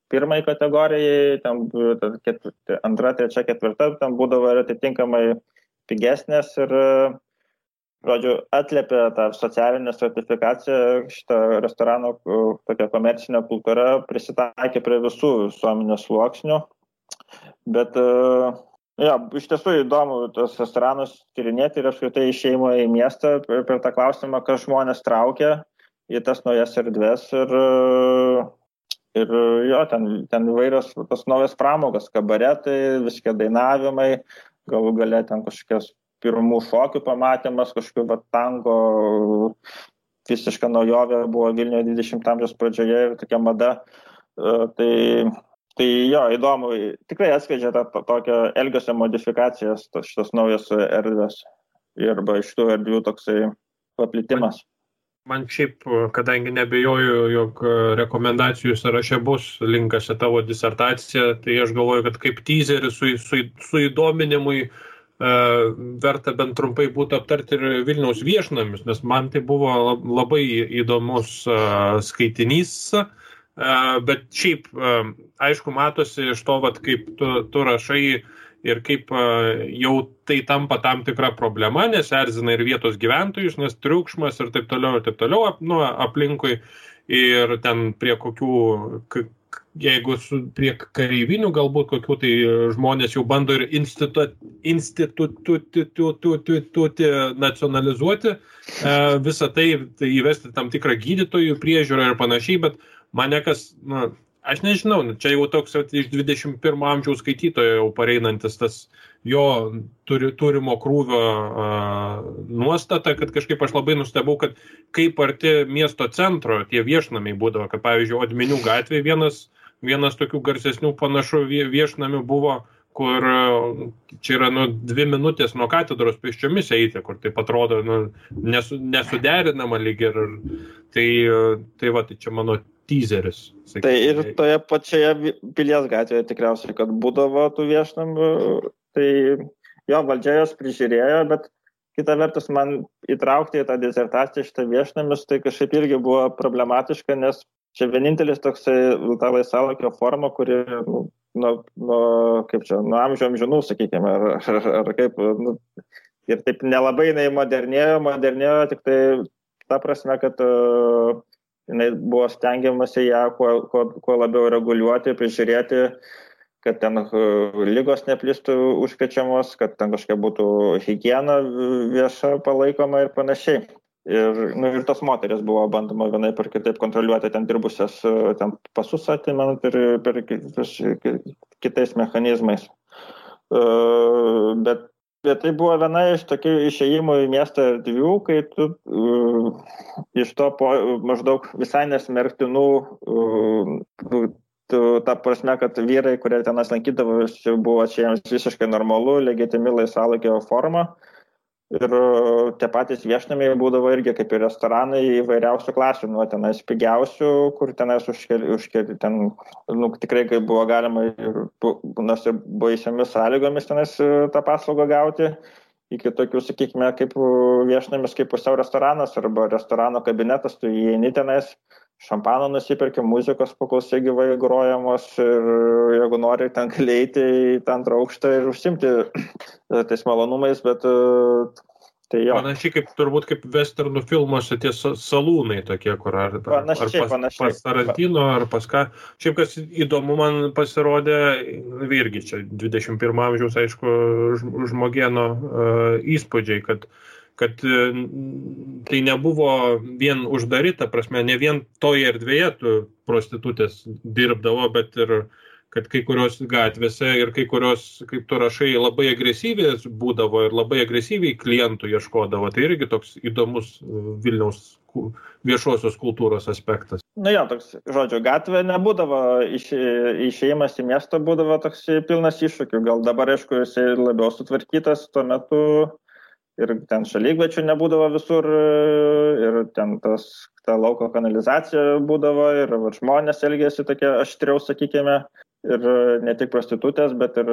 pirmai kategorijai, ten 2, 3, 4, ten būdavo ir atitinkamai pigesnės ir, žodžiu, atliepė tą socialinę stratifikaciją, šitą restorano tokia komercinė kultūra prisitaikė prie visų visuomenės sluoksnių, bet iš tiesų įdomu tos restoranus tyrinėti ir apskritai išėjimo į miestą per tą klausimą, kas žmonės traukia į tas naujas erdvės ir jo, ten įvairios tos naujas pramogas, kabaretai, viskie dainavimai, galų gale ten kažkokios pirmų šokių pamatymas, kažkokių tango, visiška naujovė buvo Vilniuje 20 amžiaus pradžioje ir tokia mada. Tai jo, įdomu, tikrai atskleidžia tokią elgesio modifikacijas, šitos naujos erdvės arba iš tų erdvių toksai paplitimas. Man šiaip, kadangi nebejoju, jog rekomendacijų sąraše bus linkas į tavo disertaciją, tai aš galvoju, kad kaip teaserį su įdominimui verta bent trumpai būtų aptarti ir Vilniaus viešnamius, nes man tai buvo labai įdomus skaitinys, bet šiaip, aišku, matosi iš to, kaip tu rašai ir kaip jau tai tampa tam tikra problema, nes erzina ir vietos gyventojus, nes triukšmas ir taip toliau aplinkui ir ten prie kokių, jeigu prie kareivinių galbūt kokių, tai žmonės jau bando ir instituti nacionalizuoti visą tai įvesti tam tikrą gydytojų priežiūrą ir panašiai, bet mane kas, aš nežinau, čia jau toks iš 21 amžiaus skaitytojo jau pareinantis tas jo turimo krūvio nuostata, kad kažkaip aš labai nustebau, kad kaip arti miesto centro tie viešnamiai būdavo, kad pavyzdžiui, Odminių gatvėje vienas tokių garsesnių panašų viešnamių buvo, kur čia yra 2 minutės nuo katedros pėsčiomis eiti, kur taip atrodo nesuderinama lyg ir tai čia mano teaseris. Sakykime. Tai ir toje pačioje Pilies gatvėje tikriausiai, kad būdavo tų viešnamių, tai jo valdžia jos prižiūrėjo, bet kita vertus man įtraukti į tą disertaciją šitą viešnamius, tai kažkaip irgi buvo problematiška, nes čia vienintelis toksai ta laisvalaikio forma, kuri nuo amžių amžinų, sakykime, ar kaip, ir taip nelabai jinai modernėjo, tik tai ta prasme, kad jinai buvo stengiamasi ją kuo labiau reguliuoti, prižiūrėti, kad ten ligos neplistų užkrečiamos, kad ten kažkokia būtų higiena vieša palaikoma ir panašiai. Ir tos moteris buvo bandoma vienaip ar kitaip kontroliuoti ten dirbusias, ten pasus atimant ir per kitais mechanizmais. Bet tai buvo viena iš tokių išėjimų į miestą erdvių, kai tu iš to maždaug visai nesmerktinų, ta prasme, kad vyrai, kurie tenas lankydavo, buvo čia jiems visiškai normalu, legitimi laisvalaikio forma. Ir tie patys viešnamiai būdavo irgi kaip ir restoranai įvairiausių klasių, nuo tenais pigiausių, kur tenais užkeli ten, tikrai kaip buvo galima nors ir baisiomis sąlygomis tenais tą paslaugą gauti, iki tokių, sakykime, kaip viešnamis, kaip pusiau restoranas arba restorano kabinetas, tu įeini tenais, šampano nusipirki, muzikos paklausai gyvai grojamos ir jeigu nori, ten gali eiti į tą antrą aukštą ir užsimti tais malonumais, bet tai jo. Panašiai kaip turbūt kaip westernų filmuose tie salūnai tokie, kur ar pas Tarantino, ar pas ką. Šiaip kas įdomu man pasirodė, irgi čia 21 amžiaus, aišku, žmogieno įspūdžiai, kad tai nebuvo vien uždaryta, prasme, ne vien toje erdvėje tu prostitutės dirbdavo, bet ir kad kai kurios gatvėse ir kai kurios, kaip tu rašai, labai agresyviai būdavo ir labai agresyviai klientų ieškodavo. Tai irgi toks įdomus Vilniaus viešosios kultūros aspektas. Jo, toks, žodžiu, gatvė nebūdavo, išėjimas į miestą būdavo toks pilnas iššūkių. Gal dabar, aišku, jisai labiau sutvarkytas tuo metu. Ir ten šalikvečių nebūdavo visur, ir ten ta lauko kanalizacija būdavo, ir žmonės elgėsi tokie aštriau, sakykime, ir ne tik prostitutės, bet ir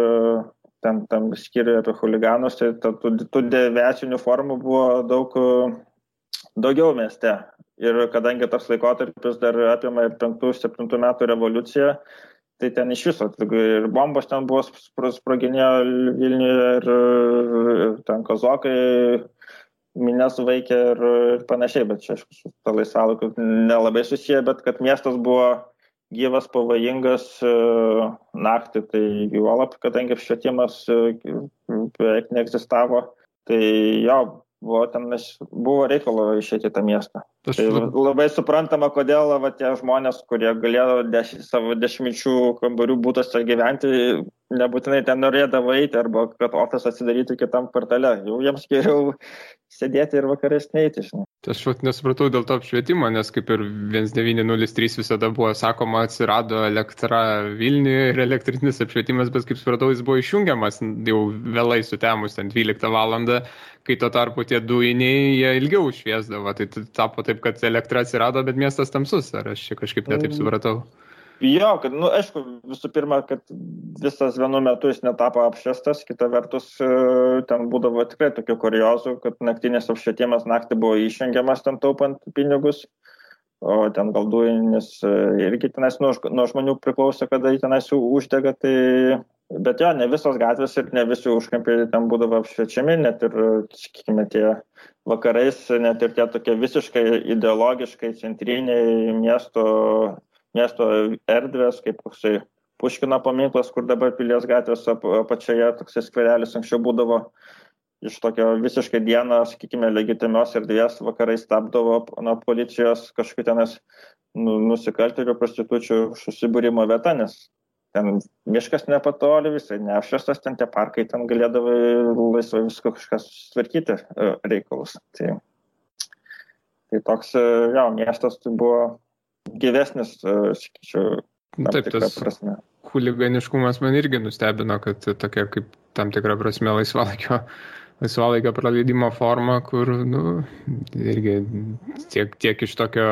ten tam skyriuje apie chuliganus, tai tų deviacinių formų buvo daugiau mieste. Ir kadangi tas laikotarpis dar apima 5-7 metų revoliuciją, tai ten iš viso, ir bombos ten buvo sproginėjo Vilniuje, ir ten kazokai mines vaikė ir panašiai, bet čia, aišku, ta laisvalaikiu nelabai susiję, bet kad miestas buvo gyvas, pavojingas naktį, tai juolab, kadangi švietimas beveik neegzistavo, tai jo, buvo reikalo išėti tą miestą. Tai labai suprantama, kodėl tie žmonės, kurie galėjo savo 10 kambarių būtuose gyventi, nebūtinai ten norėdavo eiti arba kad ofisą atsidarytų kitam kvartale. Jau jiems geriau sėdėti ir vakarais neiti, žinai. Aš nesupratau dėl to apšvietimo, nes kaip ir 1903 visada buvo sakoma, atsirado elektra Vilniuje ir elektrinis apšvietimas, bet kaip supratau, jis buvo išjungiamas jau vėlai sutemus, ten 12 valandą, kai tuo tarpu tie dujiniai jie ilgiau šviesdavo. Tai tapo taip, kad elektra atsirado, bet miestas tamsus. Ar aš čia kažkaip netaip supratau? Jo, kad, aišku, visų pirma, kad visas vienu metu jis netapo apšviestas, kita vertus ten būdavo tikrai tokių kuriozų, kad naktinės apšvietimas naktį buvo išjungiamas ten taupant pinigus, o ten gal dujinis irgi tenais nuo žmonių priklauso, kada jį tenais uždega, tai... Bet jo, ne visos gatvės ir ne visi užkampiai ten būdavo apšviečiami, net ir, sakykime, tie vakarais, net ir tie tokie visiškai ideologiškai centriniai miesto erdvės, kaip koksai Puškino paminklas, kur dabar Pilies gatvės apačioje toksai skverelis anksčiau būdavo iš tokio visiškai dieną, sakykime, legitimios erdvės vakarais tapdavo nuo policijos kažkokių tenas nusikaltėlių prostitučių susibūrimo vieta, nes ten miškas nepatoli, visai neapšviestas, ten tie parkai, ten galėdavo laisvai visko kažkas tvarkyti reikalus. Tai toks, jo, miestas tai buvo gyvesnis, sakyčiau, tam tikrą prasme. Chuliganiškumas man irgi nustebino, kad tokia kaip tam tikrą prasme laisvalaikio praleidimo forma, kur, irgi tiek iš tokio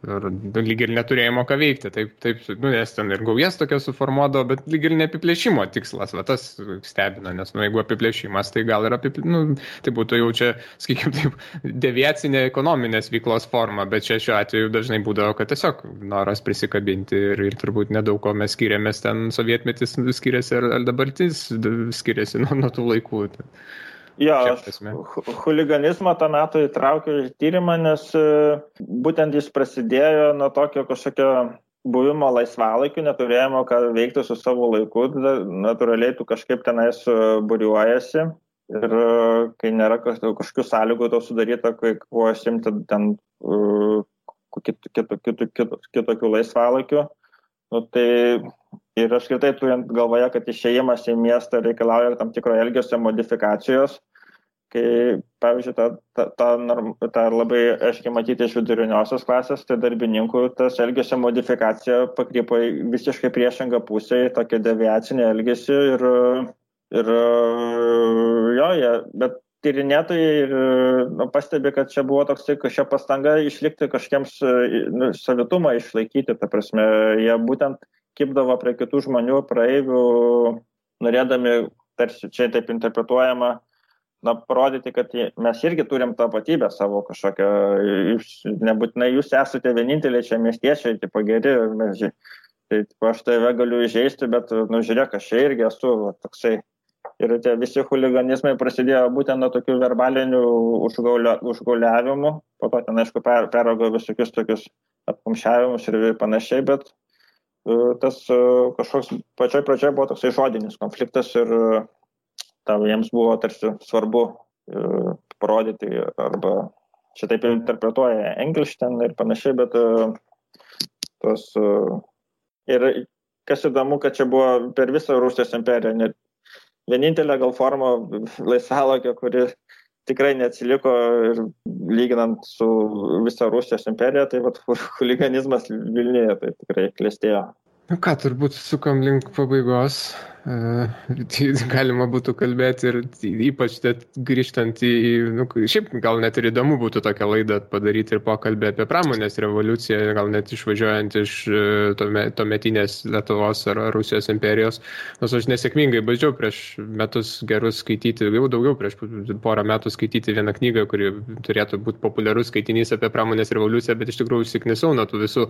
lyg ir neturėjimo ką veikti. Taip, nes ten ir gaujas tokia suformuodavo, bet lyg ir ne apiplėšimo tikslas, va tas stebina, nes jeigu apiplėšimas, tai gal ir tai būtų jau čia, sakykime, taip, deviacinė ekonominės veiklos forma, bet čia šiuo atveju dažnai būdavo, kad tiesiog noras prisikabinti ir turbūt nedaug ko mes skiriamės, ten sovietmetis skiriasi ar dabartis skiriasi nuo tų laikų. Jo, chuliganizmą tą metu įtraukiau į tyrimą, nes būtent jis prasidėjo nuo tokio kažkokio buvimo laisvalaikiu, neturėjimo ką veikti su savo laiku, natūraliai tu kažkaip tenais būriuojasi ir kai nėra kažkokių sąlygų to sudaryta, kai kuo užsiimti ten kitokių laisvalaikių. Tai ir aš kitai turint galvoje, kad išėjimas į miestą reikalauja tam tikro elgesio modifikacijos, kai, pavyzdžiui, tą labai aiškiai matyti iš viduriniosios klasės, tai darbininkų tas elgesio modifikacija pakrypo į visiškai priešingą pusę, į tokią deviacinę elgesį bet tyrinėtojai pastebi, kad čia buvo toksai kažkokia pastanga išlikti kažkiems savitumą išlaikyti, ta prasme, jie būtent kibdavo prie kitų žmonių, praeivių, norėdami, tarsi čia taip interpretuojama, parodyti, kad mes irgi turim tapatybę savo kažkokią, nebūtinai jūs esate vieninteliai čia miestiečiai, tipo geri, tai aš tave galiu įžeisti, bet, žiūrėk, aš čia irgi esu toksai. Ir tie visi chuliganizmai prasidėjo būtent nuo tokių verbalinių užgauliavimų, po to ten, aišku, peraugo visokius tokius apkumščiavimus ir panašiai, bet tas kažkoks pačioj pradžioje buvo toksai žodinis konfliktas ir jiems buvo tarsi svarbu parodyti, arba čia taip interpretuoja Engelstein ir panašiai, bet ir kas įdomu, kad čia buvo per visą Rusijos imperiją, vienintelė gal forma laisvalaikio, kuri tikrai neatsiliko ir lyginant su visą Rusijos imperiją, tai chuliganizmas Vilniuje tai tikrai klestėjo. Ką, turbūt sukam link pabaigos. Galima būtų kalbėti ir ypač grįžtant šiaip gal net ir įdomu būtų tokią laidą padaryti ir pokalbį apie pramonės revoliuciją, gal net išvažiuojant iš tuometinės Lietuvos ar Rusijos imperijos. Nors aš nesėkmingai bandžiau prieš metus gerus skaityti, jau daugiau prieš porą metų skaityti vieną knygą, kuri turėtų būti populiarus skaitinys apie pramonės revoliuciją, bet iš tikrųjų užsiknisau nuo tų visų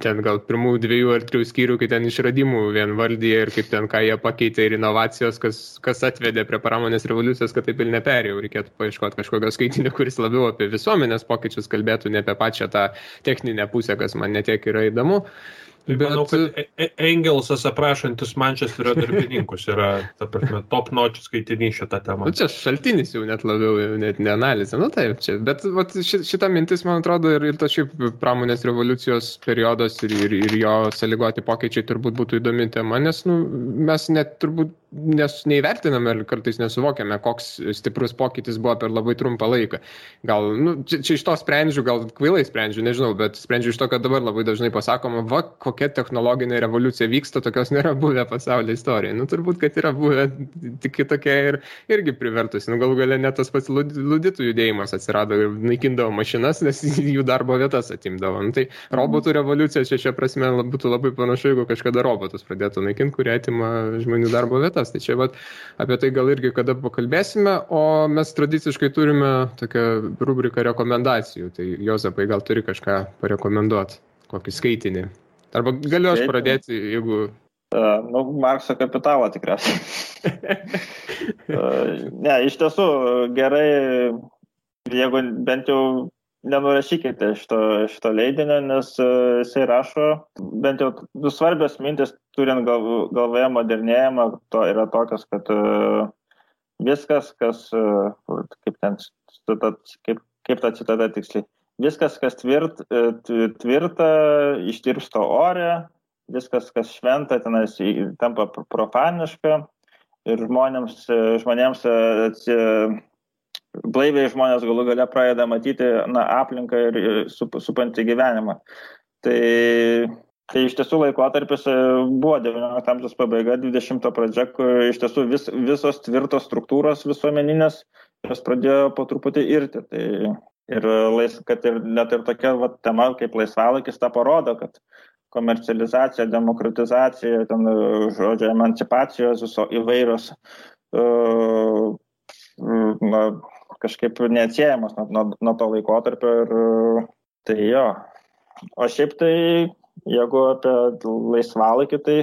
ten gal pirmų 2 ar 3 skyrių, kai ten išradimų vien vardyje ir kaip ten ką jie pakeitė ir inovacijos, kas atvedė prie pramonės revoliucijos, kad taip ir neperėjau. Reikėtų paieškoti kažkokio skaitinio, kuris labiau apie visuomenės pokyčius kalbėtų, ne apie pačią tą techninę pusę, kas man netiek yra įdomu. Tai manau, kad Engelsas aprašantis Mančesterio darbininkus yra, ta prasme, top notch skaitinys šitą temą. Nu, čia šaltinis jau net labiau, net ne analizė. Nu, taip, čia. Bet šita mintis, man atrodo, ir tas šiaip pramonės revoliucijos periodas ir jo sąlygoti pokyčiai turbūt būtų įdomi tema, nes mes net turbūt neįvertiname ir kartais nesuvokiame, koks stiprus pokytis buvo per labai trumpą laiką. Gal, čia iš to sprendžiu, gal kvailai sprendžiu, nežinau, bet sprendžiu iš to, kad dabar labai dažnai pasakoma, kokia technologinė revoliucija vyksta, tokios nėra buvę pasaulio istorijoje. Turbūt, kad yra buvę tik kitokia ir irgi privertusi. Galų gale net tas pats luditų judėjimas atsirado ir naikindavo mašinas, nes jų darbo vietas atimdavo. Tai robotų revoliucija šia prasme būtų labai panašu, jeigu kažkada robotus pradėtų naikinti, kurie atima žmonių darbo vietas. Tai čia apie tai gal irgi kada pakalbėsime, o mes tradiciškai turime tokią rubriką rekomendacijų. Tai Jozapai gal turi kažką parekomenduoti, kokį skaitinį. Arba galiu aš pradėti, jeigu... Markso kapitalą tikriausiai. Ne, iš tiesų gerai, jeigu bent jau nenurašykite šito leidinio, nes jisai rašo, bent jau svarbios mintis, turint galvoje modernėjimą, to yra tokios, kad viskas, kas, kaip ta citata tiksliai, viskas, kas tvirta, ištirpsta ore, viskas, kas šventa, tenais tampa profaniška ir žmonėms blaiviai žmonės galų gale pradeda matyti aplinką ir supantį gyvenimą. Tai iš tiesų laikotarpis buvo 19 amžiaus pabaiga, 20 pradžia, kur iš tiesų visos tvirtos struktūros visuomeninės, jos pradėjo po truputį irti. Kad ir net ir tokia tema kaip laisvalaikis tą parodo, kad komercializacija, demokratizacija, emancipacijos įvairios kažkaip neatsiejamas nuo to laikotarpio ir tai jo. O šiaip tai, jeigu apie laisvalaikį, tai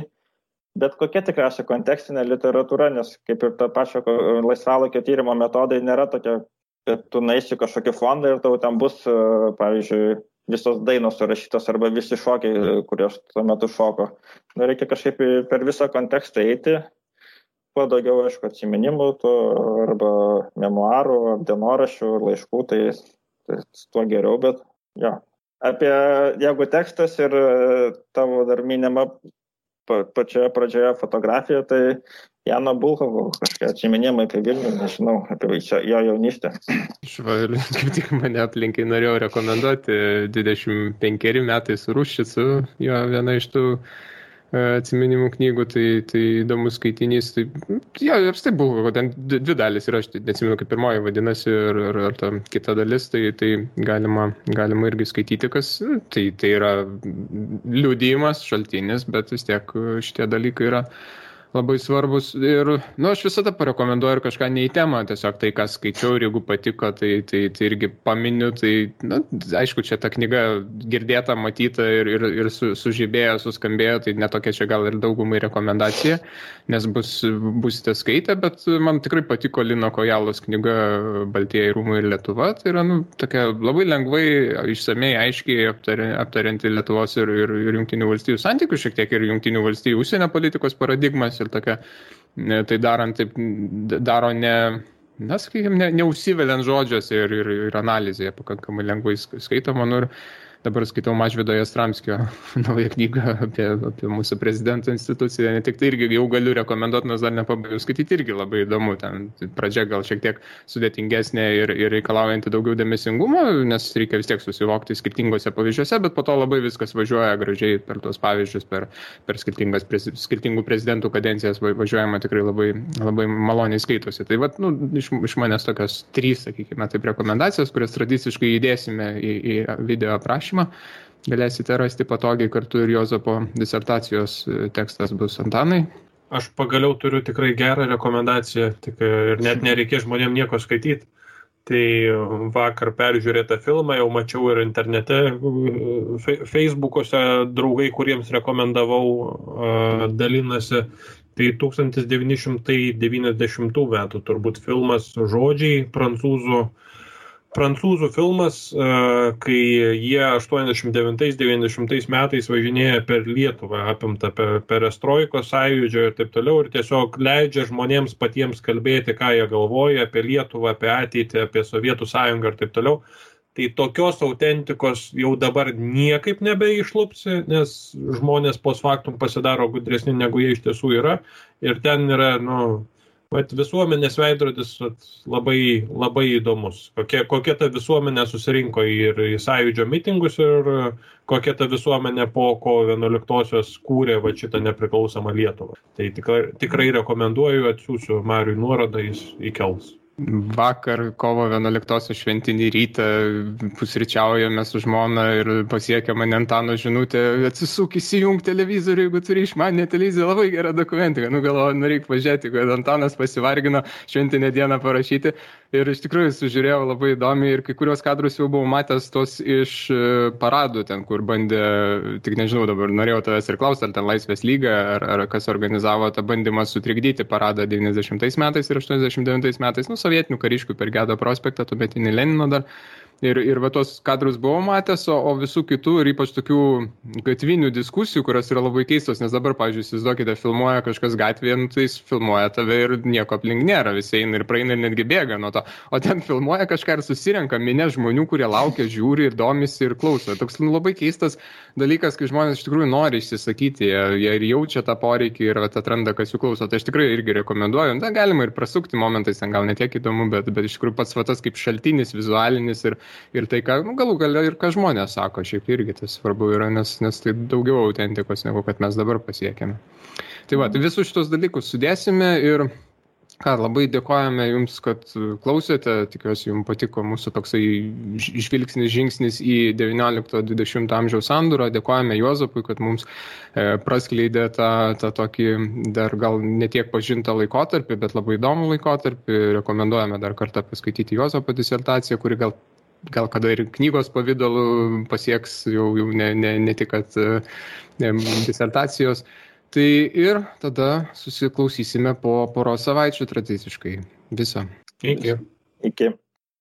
bet kokia tikriausiai kontekstinė literatūra, nes kaip ir ta pačio laisvalaikio tyrimo metodai nėra tokia, kad tu naisi kažkokį fondą ir tau ten bus, pavyzdžiui, visos dainos surašytos arba visi šokiai, kurios tuo metu šoko. Reikia kažkaip per visą kontekstą eiti. Kuo daugiau, aišku, atsiminimų, arba memuarų, dienoraščių, laiškų, tai tuo geriau, bet jo. Jeigu tekstas ir tavo dar minima pačioje pradžioje fotografija, tai Jano Bulhakovo kažkokie atsiminimai apie Vilnių, nežinau, apie jo jaunystę. Ir kaip tik mane aplinkai norėjau rekomenduoti, 25 metai su Ruščicu, jo viena iš tų atsiminimų knygų, tai įdomus skaitinys. Tai, jo, apstai buvo, ten 2 dalis ir aš neatsimenu, kaip pirmoji vadinasi ir ta kita dalis, tai galima irgi skaityti, kas tai yra liudijimas, šaltinis, bet vis tiek šitie dalykai yra labai svarbus ir, aš visada parekomenduoju ir kažką ne į temą, tiesiog tai, ką skaičiau ir jeigu patiko, tai irgi paminiu, tai, aišku, čia ta knyga girdėta, matyta ir sužibėjo, suskambėjo, tai netokia čia gal ir daugumai rekomendacija, nes busite skaitę, bet man tikrai patiko Lino Kojalos knyga Baltieji rūmai ir Lietuva, tai yra, tokia labai lengvai, išsamei, aiškiai aptarianti Lietuvos ir Jungtinių valstijų santykių, šiek tiek ir Jungtinių valstijų užsienio politikos paradigmas, ir tokia, tai daro neužsiveliant žodžiuose ir analizėje pakankamai lengvai skaitoma. Ir dabar skaitau Mažvydo Jastramskio naują knygą apie mūsų prezidento instituciją. Ne tik tai irgi jau galiu rekomenduoti, nes dar nepabaigiau skaityti, irgi labai įdomu. Ten pradžia gal šiek tiek sudėtingesnė ir reikalaujanti daugiau dėmesingumo, nes reikia vis tiek susivokti skirtingose pavyzdžiuose, bet po to labai viskas važiuoja gražiai per tuos pavyzdžius, per skirtingų prezidentų kadencijas važiuojama tikrai labai, labai maloniai skaitosi. Tai iš manęs tokios 3, sakykime, taip rekomendacijos, kurias tradiciškai įdėsime į video aprašymą. Galėsite rasti patogiai, kartu ir Jozapo disertacijos tekstas bus. Antanai? Aš pagaliau turiu tikrai gerą rekomendaciją, ir net nereikės žmonėm nieko skaityti. Tai vakar peržiūrėtą filmą jau mačiau ir internete, Facebook'ose draugai, kuriems rekomendavau, dalinasi. Tai 1990 metų turbūt filmas Žodžiai, prancūzų prancūzų filmas, kai jie 89-90 metais važinėja per Lietuvą, apimta perestroikos sąjūdžio ir taip toliau, ir tiesiog leidžia žmonėms patiems kalbėti, ką jie galvoja apie Lietuvą, apie ateitį, apie Sovietų sąjungą ir taip toliau. Tai tokios autentikos jau dabar niekaip nebeišlupsi, nes žmonės post factum pasidaro gudresni, negu jie iš tiesų yra. Ir ten yra, visuomenės veidrodis labai, labai įdomus. Kokia ta visuomenė susirinko ir į sąjūdžio mitingus ir kokia ta visuomenė po kovo 11-osios kūrė šitą nepriklausomą Lietuvą. Tai tikrai rekomenduoju, atsiųsiu Mariui nuorodą, jis įkels. Vakar kovo 11 šventinį rytą pusryčiaujame su žmona ir pasiekė mane Antano žinutė, atsisuk įsijung televizorių, jeigu turi išmaninę televiziją, labai gera dokumentika. Galvoju, reikia pažiūrėti, kad Antanas pasivargino šventinę dieną parašyti. Ir iš tikrųjų sužiūrėjau labai įdomiai ir kai kurios kadrus jau buvau matęs tos iš paradų ten, kur bandė, tik nežinau dabar, norėjau tavęs ir klausti, ar ten Laisvės lyga, ar kas organizavo tą bandymą sutrikdyti paradą 90 metais ir 89 metais, sovietinių kariškių per Gedo prospektą, tuometinį Lenino dar. Ir va tos kadrus buvau matęs, o visų kitų ir ypač tokių gatvinių diskusijų, kurios yra labai keistos, nes dabar, pavyzdžiui, įsivaizduokite, filmuoja kažkas gatvėje, tai jis filmuoja tave ir nieko aplink nėra, visi eina ir praeina ir netgi bėga nuo to. O ten filmuoja kažką ir susirenka minė žmonių, kurie laukia, žiūri ir domisi ir klauso. Toks labai keistas dalykas, kai žmonės iš tikrųjų nori išsisakyti, jie ir jaučia tą poreikį ir atranda, kas jų klauso. Tai aš tikrai irgi rekomenduoju. Na, galima ir prasukti momentais, ten gal netiek įdomu, bet iš tikrųjų pats tas kaip šaltinis, vizualinis ir tai, ką galų gale ir ką žmonės sako, šiaip irgi tas svarbu yra, nes tai daugiau autentikos, negu kad mes dabar pasiekėme. Tai tai visus šitos dalykus sudėsime ir labai dėkojame Jums, kad klausėte, tikiuosi Jums patiko mūsų toksai žingsnis į 19-20 amžiaus sandūrą, dėkojame Juozapui, kad mums praskleidė tą tokį dar gal netiek pažintą laikotarpį, bet labai įdomų laikotarpį, rekomenduojame dar kartą paskaityti Juozapo disertaciją, kuri gal kada ir knygos pavidalu pasieks jau ne tik kad disertacijos. Tai ir tada susiklausysime po poros savaičių tradiciškai. Viso. Iki. Iki.